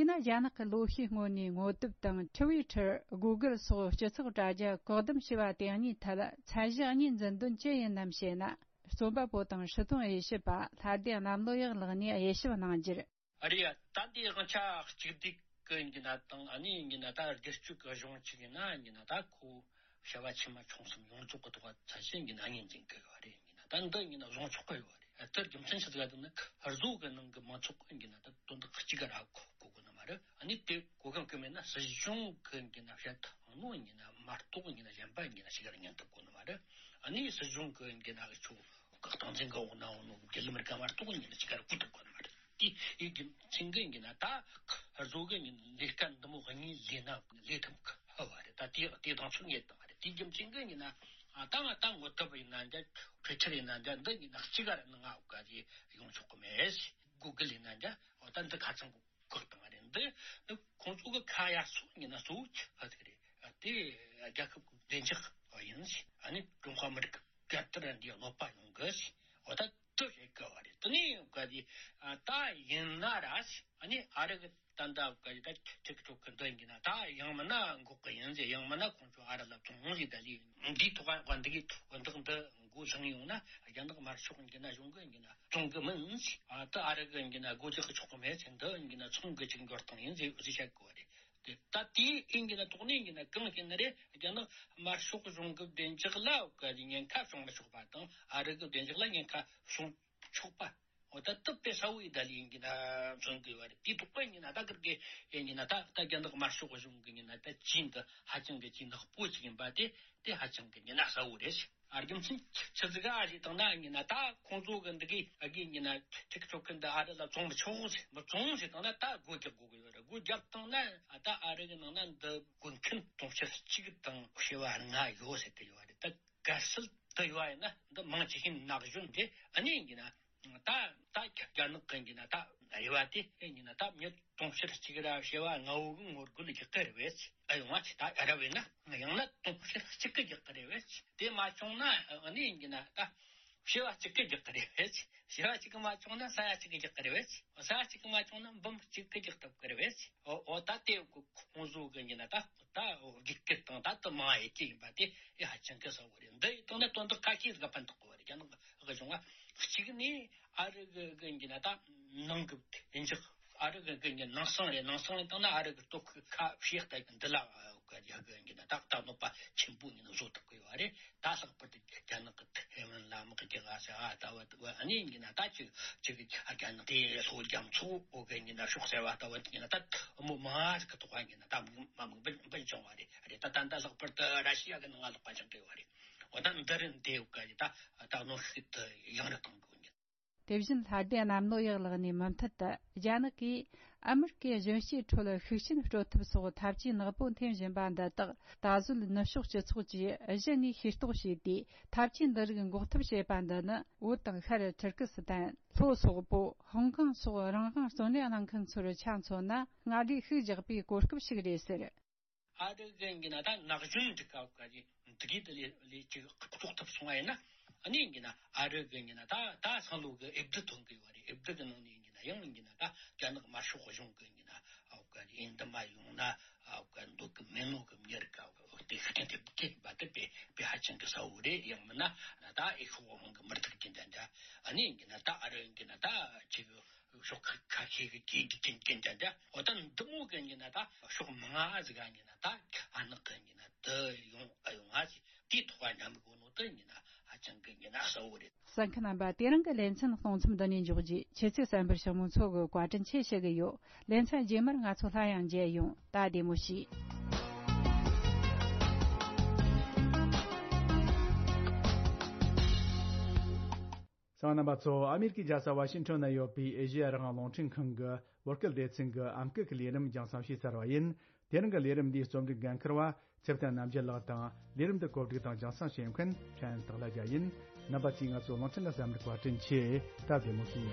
ཡིན་ན་རྒྱ་ནག་གི་ལོ་ཤས་སྔོན་ནས་ངོ་དེབ་དང་ཊི་ཝི་ཊར། གུ་གལ་སོགས་སྤྱི་ཚོགས་དྲ་རྒྱ་བཀག་སྡོམ་བྱས་པ་དེ་གཉིས་ཐད་ཚད་གཞི་གཉིས་འཛིན་དོན་ཅི་ཡིན་ནམ་ཞེ་ན། རྩོམ་པ་པོ་དང་སྲིད་དོན་དབྱེ་ཞིབ་པ་ལྷ་ལྡན་གནམ་ལོ་ཡག་ལགས་ནས་དབྱེ་ཞིབ་གནང་རྒྱུར། ཨ་རེད་ཡ། ད་འདི་དབང་ཆ་གཅིག་སྡུད་ཀྱི་ཡིན་གྱི་ན་དང་། ཨ་ནི་ཡིན་གྱི་ན་ད་སྒེར་གཅོད་ཀྱི་གཞུང་གཅིག་ཡིན་ན་ཡིན་གྱི་ན་ད་ཁོ་བྱ་བ་ཆེ་མ་ཆུང་གསུམ་ཡོངས་རྫོགས་ཀྱི་ཐོག་བ་ཚད་གཞི་ཡིན་གྱི་ན་གཉིས་འཛིན་གི་ཡོད་རེད། ཡིན་གྱི་ན་ད་འདི་ཡིན་གྱི་ན་བཟུང་ཆོག་གི་ཡོད་རེད། དེར་རྒྱུ་མཚན་ཆི་ཟིག་ལ་དེ་ནི་བཟོ་གི་ནང་གི་མང་ཚོགས་ཀྱི་ཡིན་གྱི་ན་ད་དོན་དག་གཅིག་ག་ར་གོ་གོ་གི་ནི་མ་རེད། ཨ་ནི་དེ་གོ་གང་གི་མེད་ན་སྲིད་གཞུང་གི་ཡིན་གྱི་ན་བཤད་ཐང་ནོ་ཡིན་གྱི་ན་མ་གཏོགས་ཡིན་གྱི་ན་གཞན་པ་ཡིན་གྱི་ན་ཞིག་ག་ར་ཉན་ཐུབ་གོ་ནི་མ་རེད། ཨ་ནི་སྲིད་གཞུང་གི་ཡིན་གྱི་ན་ཆོ་སྟངས་འཛིན་གི་འོག་ན་འོང་ནོ་རྒྱུ་ལམ་རིག་ག་མ་གཏོགས་ཡིན་གྱི་ན་ཞིག་ག་ར་གོ་ཐུབ་གོ་ནི་མ་རེད། དེ་ཡིན་གྱི་ཚིག་གི་ཡིན་གྱི་ན་ད་བཟོ་གི་ཡིན་ལས་ཀ་འདི་མོ་གཉིས་ལས་ན་ལས་ཐུབ་གི་ཧ་བ་རེད། ད་དེ་དེ་དང་ཆོ་ངེས་དང་རེད། དེ་རྒྱུ་མཚན་གི་ཡིན་ན་ད་ང་ད་ངོ་དེབ་ཡིན་ན་འདྲ། ཊི་ཝི་ཊར་ཡིན་ན་འདྲ། འདི་ཡིན་ན་གཅིག་ག་ར་ནི་ང་འོག་ག་རེ་ཡོང་ཆོག་གི་མེད། གུ་གལ་ཡིན་ན་འདྲ། འོ་ད་འདི་ཁ་ཚང་གི་བཀག་བཏང་བ་རེད། འདི་ནི་ཁོང་ཚོ་གི་ཁ་ཡ་སོ་ཡིན་ན་གཙོ་བོ་ཆི་ཧ་ཟིག་རེད། དེ་རྒྱལ་ཁབ་ཀྱི་བདེ་འཇགས་ཡིན་ཟིག་ཨ་ནི་ཀྲུང་ཧྭ་མི་རིགས་ཀྱི་རྒྱལ་དར་འདི་གནོད་པ་ཡོང་གི་ཟིག་འོ་ད་དུ་བྱེད་དཀའ་བ་རེད། དེ་ནས་ག་དེ་ད་ཡིན་ན་ར་ཟིག་ཨ་ནི་ཨ་རི་གི་ད་ད་ག་དེ་ད་ཁྲིག་ཁྲོག་གི་འདི་ཡིན་གྱི་ན་ད་ཡང་མིན་ན་འགོག་གི་ཡིན་ཟིག་ཡང་མིན་ན་ཁོང་ཚོ་ཨ་རི་ལ་བཙོང་ཟིག་ད་ལི་འདིའི་ཐོག་ག་འདི་གི་ཐོག་འདི་འདི་མགོ་བཟུང་ཡོང་ན་རྒྱ་ནག་དམར་ཤོག་ཡིན་གྱི་ན་གཞུང་གི་ཡིན་གྱི་ན། བཙོང་གི་མིན། ཨ་ད་ཨ་རི་གི་ཡིན་གྱི་ན་སྒོ་རྒྱག་གི་ཆོག་གི་མེད་ཟེར། འདི་ཡིན་གྱི་ན་ཚོང་གི་ཅིག་འགྱུར་སྟངས་ཡིན་ཟེར་ཟེར་བཤད་གོ་རེད། དེ་ད་དེའི་ཡིན་གྱི་ན་ཐོག་ནས་ཡིན་གྱི་ན་གང་ཡིན་ན་རེད། རྒྱ་ནག་དམར་ཤོག་གཞུང་གི་བདེ་འཇགས་ལ་ག་ཉེན་ཁ་བྱུང་མི་ཆོག་པ་དང་། ཨ་རི་གི་བདེ་འཇགས་ལ་ཉེན་ཁ་བྱུང་ཆོག་པ། འོ་ད་དུ་དཔེ་གསལ་བོ་ཡི་ད་ལི་ཡིན་གྱི་ན་མཚོན་གི་ཡོད་རེད། དེའི་ཐོག་པ་ཡིན་གྱི་ན་ད་གར་གི་ཡིན་གྱི་ན་ད་ད་རྒྱ་ནག་དམར་ཤོག་གཞུང་གི་ཡིན་ན་ད་ཅིན་དུ་ཧ་ཅང་གི་ཅིན་ནག་པོ་ཅིག་ཡིན་པ་དེ་དེ་ཧ་ཅང་གི་ཡིན་གྱི་ན་གསལ་བོ་རེད། ཨ་རྒྱུ་མཚན་ཆི་ཟིག་ཨ་ཞིག་བཏང་ན་ཡིན་ན་ད་ཁོང་ཚོ་གི་འདི་གི་ཨ་གི་ཡིན་ན་ཁྲིག་ཁྲོག་གི་འདི་ཨ་རི་ལ་བཙོང་མི་ཆོག་ཟེར། མི་བཙོང་ཟེར་བཏང་ན་ད་སྒོ་རྒྱག་དགོས་གི་ཡོད་རེད། སྒོ་རྒྱབ་བཏང་ན་ཨ་ད་ཨ་རི་གི་ནང་ན་འདི་དགོས་མཁན་དུང་ཕྱུར་གཅིག་དང་བྱེ་བ་ལྔ་ཡོད་ཟེར་གི་ཡོད་རེད། ད་གལ་སྲིད་འདི་ཡོད་ཡིན་ན་འདི་མང་ཆེ་ཤོས་ན་གཞོན་རེད། ཨ་ནི་ཡིན་གྱི་ན་ད་ད་རྒྱ་ནག་གི་ཡིན་གྱི་ན་ད་རེ་བ་དེ་ཡིན་གྱི་ན་ད་མྱི་དུང་ཕྱུར་གཅིག་ར་བྱེ་བ་ལྔ་བོ་གི་ངོ་རྒོལ་རྒྱག་གི་རེད་བས། ཨ་ཡོང་བ་ཆི་ད་ར་བས་ན་ཡང་ན་དུང་ཕྱུར་གཅིག་གི་རྒྱག་གི་རེད་བས། དེ་མ་བྱུང་ན་ཨ་ནི་ཡིན་གྱི་ན་ད་བྱེ་བ་གཅིག་གི་རྒྱག་གི་རེད་བས། བྱེ་བ་གཅིག་གི་མ་བྱུང་ན་ས་ཡ་གཅིག་གི་རྒྱག་གི་རེད་བས། ས་ཡ་གཅིག་གི་མ་བྱུང་ན་འབུམ་གཅིག་གི་རྒྱག་ཐུབ་གི་རེད་བས། ཨོ་ཨོ་ད་དེ་ཁོང་ཚོ་གི་ཡིན་གྱི་ན་ད་ད་རྒྱུག་སྐད་དང་ད་དུ་མང་ཡེ་གི་ཡིན་པ་དེ་ཨེ་ཧ་ཅང་གི་གསལ་བོ་རེད། འདི་ཡི་སྟེང་ན་དོན་དག་ཁ་ཤས་ཟིག་ཕན་ཐོགས་གི་བ་རེད། རྒྱ་ནག་གི་གཞུང་བ་གཅིག་ནས་ཨ་རི་གི་གི་ཡིན་གྱི་ན་ད་ནང་གི་བདེ་འཇགས། ཨ་རི་གི་གི་ནང་སང་རེད། ནང་སང་རེད་བཏང་ན་ཨ་རི་གི་སྟོབས་ཤུགས་ཁ་ཕྱེ་ལྟ་གི་འདི་ལ་གི་ཡ་གི་ཡིན་གྱི་ན་ད་ད་གནོད་པ་ཆེན་པོ་ཡིན་བཟོ་ཐུབ་གི་ཡོད་རེད། ད་ལྷག་པར་དུ་རྒྱ་ནག་གི་ཐའེ་ཝན་ལ་དམག་རྒྱག་ཨ་ཟེར་ཨ་ལྟ་བུ་ཨ་ནི་ཡིན་གྱི་ན་ད་ཅིག་ཅིག་རྒྱ་ནག་དེ་ལྷོ་རྒྱ་མཚོ་འོག་གི་ཡིན་གྱི་ན་ཕྱོགས་གསར་བ་ལྟ་བུ་ཡིན་གྱི་ན་ད་མོ་མ་ཟིག་གི་ཐོག་ཡིན་གྱི་ན་ད་མ་མི་འབུད་འབུད་བྱུང་བ་རེད། རེད། ད་ད་ད་ལྷག་པར་དུ་ར་ཤི་ཡ་གི་ནང་ང་ལོག་པ་ཅང་གི་ཡོད་རེད། འོ་ད་འདི་རིན་དེ་ཡོད་ག་ཡི་ད་ད་གནོན་ཤུགས་དུ་ཡང་རུ་གཏོང་དགོས་ཉིན། དེ་བཞིན་ལྷ་ལྡན་གནམ་ལོ་ཡག་ལགས་ནས་མུ་མཐུད་དུ་རྒྱ་ནག་གིས་ཨ་མི་རི་ཀའི་གཞོན་སྐྱེས་ཁྲོད་ཤུགས་རྐྱེན་སྤྲོད་ཐབས་སོགས་ཐབས་ཇུས་ནག་པོ་འཐེན་བཞིན་པ་འདི་དག་ད་གཟོད་ནུབ་ཕྱོགས་སྤྱི་ཚོགས་ཀྱིས་གཞི་ནས་ཤེས་རྟོགས་བྱས་ཏེ་ཐབས་ཇུས་འདི་རིགས་འགོག་ཐབས་བྱེད་པ་འདི་ནི་བོད་དང་ཤར་ཐུར་ཀི་སི་ཐན། ལྷོ་སོག་པོ། ཧོང་ཀོང་སོགས་རང་དབང་བརྩོན་ལེན་གནང་མཁན་ཚོར་ཆ་མཚོན་ན་སྔར་ལས་ཤུགས་རྒྱག་པའི་གོ་སྐབས་ཤིག་རེད་ཟེར། ཨ་རི་གི་ཡིན་གྱི་ན་ད་ན་གཞོན་འདི་ག་ག་གི་འདི་གི་དེ་ལས་ལས་ཅིག་རྟོགས་ཐུབ་སོང་བ་ཡིན་ན། ཨ་ནི་ཡིན་གྱི་ན་ཨ་རི་གི་ཡིན་གྱི་ན་ད་ད་སང་ལོ་གི་ཨེབ་དི་ཐོན་གི་ཡོད་རེད། ཨེབ་དི་གི་ནང་ནས་ཡིན་གྱི་ན་ཡང་ཡིན་གྱི་ན་ད་རྒྱ་ནག་དམར་ཤོག་གཞུང་གི་ཡིན་གྱི་ན་ཨ་ག་ཡིན་འདི་མ་ཡོང་ན་ཨ་ག་འདུག་གི་མེད་ནོ་གི་མྱི་རིགས་ག་དེ་ཤུགས་རྐྱེན་ཐེབས་གི་ཡིན་པ་དེ་དཔེ་དཔེ་ཧ་ཅང་གི་གསལ་བོ་རེད། ཡང་མིན་ན་ད་ཨེ་ཤོག་ཧོང་གི་མི་རིགས་ཀྱི་འདྲ་འདྲ། ཨ་ནི་ཡིན་གྱི་ན་ད་ཨ་རི་ཡིན་གྱི་ན་ད་ཅིག་ཕྱོགས་ཁ་ཁ་ཤས་ཀྱིས་གི་གི་གི་གི་འདྲ་འདྲ། འོ་ད་འདི་མོ་གི་ཡིན་ན་ད་ཕྱོགས་མང་ང་ཟིག་ག་ཡིན་ན་ད་ཨ་ནག་གི་ཡིན་ན་དུ་ཡོང་ཨ་ཡོང་ང་ཟིག་དེའི་ཐོག་ཉམས་གོ་ནོ་དུ་ཡིན་ན་ཧ་ཅང་གི་ཡིན་ན་གསལ་བོ་རེད། གསན་མཁན་རྣམ་པ། དེ་རིང་གི་ལེ་ཚན་གཏོང་མཚམས་འདི་ནས་འཇོག་རྒྱུ། ཁྱེད་ཚོས་གསན་པར་ཞུ་མི་ཚོ་གི་བཀའ་དྲིན་ཆེ་ཞུ་གི་ཡོད། ལེ་ཚན་རྗེས་མར་ང་ཚོ་སླར་ཡང་མཇལ་ཡོང་། ད་བདེ་མོ་བྱོས། གསན་མཁན་རྣམ་པ་ཚོ། ཨ་མེ་རི་ཀའི་རྒྱལ་ས་ཝ་ཤིང་ཊོན་ན་ཡོད་པའི་ཨེ་ཤེ་ཡ་རང་དབང་རླུང་འཕྲིན་ཁང་གི་བོད་སྐད་སྡེ་ཚན་གྱི་ཨམ་སྐད་ཀྱི་ལས་རིམ་རྒྱང་སྲིང་ཞུས་ཚར་བ་ཡིན། དེ་རིང་གི་ལས་རིམ་འདིའི་རྩོམ་སྒྲིག་འགན་འཁུར་བ་ཚེ་བརྟན་རྣམ་རྒྱལ་ལགས་དང་། ལས་རིམ་འདི་གོ་སྒྲིག་དང་རྒྱང་སྲིང་བྱེད་མཁན་ཕྲན་སྟག་ལྷ་རྒྱལ་ཡིན། རྣམ་པ་ཚོས་ང་ཚོའི་རླུང་འཕྲིན་ལ་གསན་པར་བཀའ་དྲིན་ཆེ། ད་བདེ་མོ་བྱོས།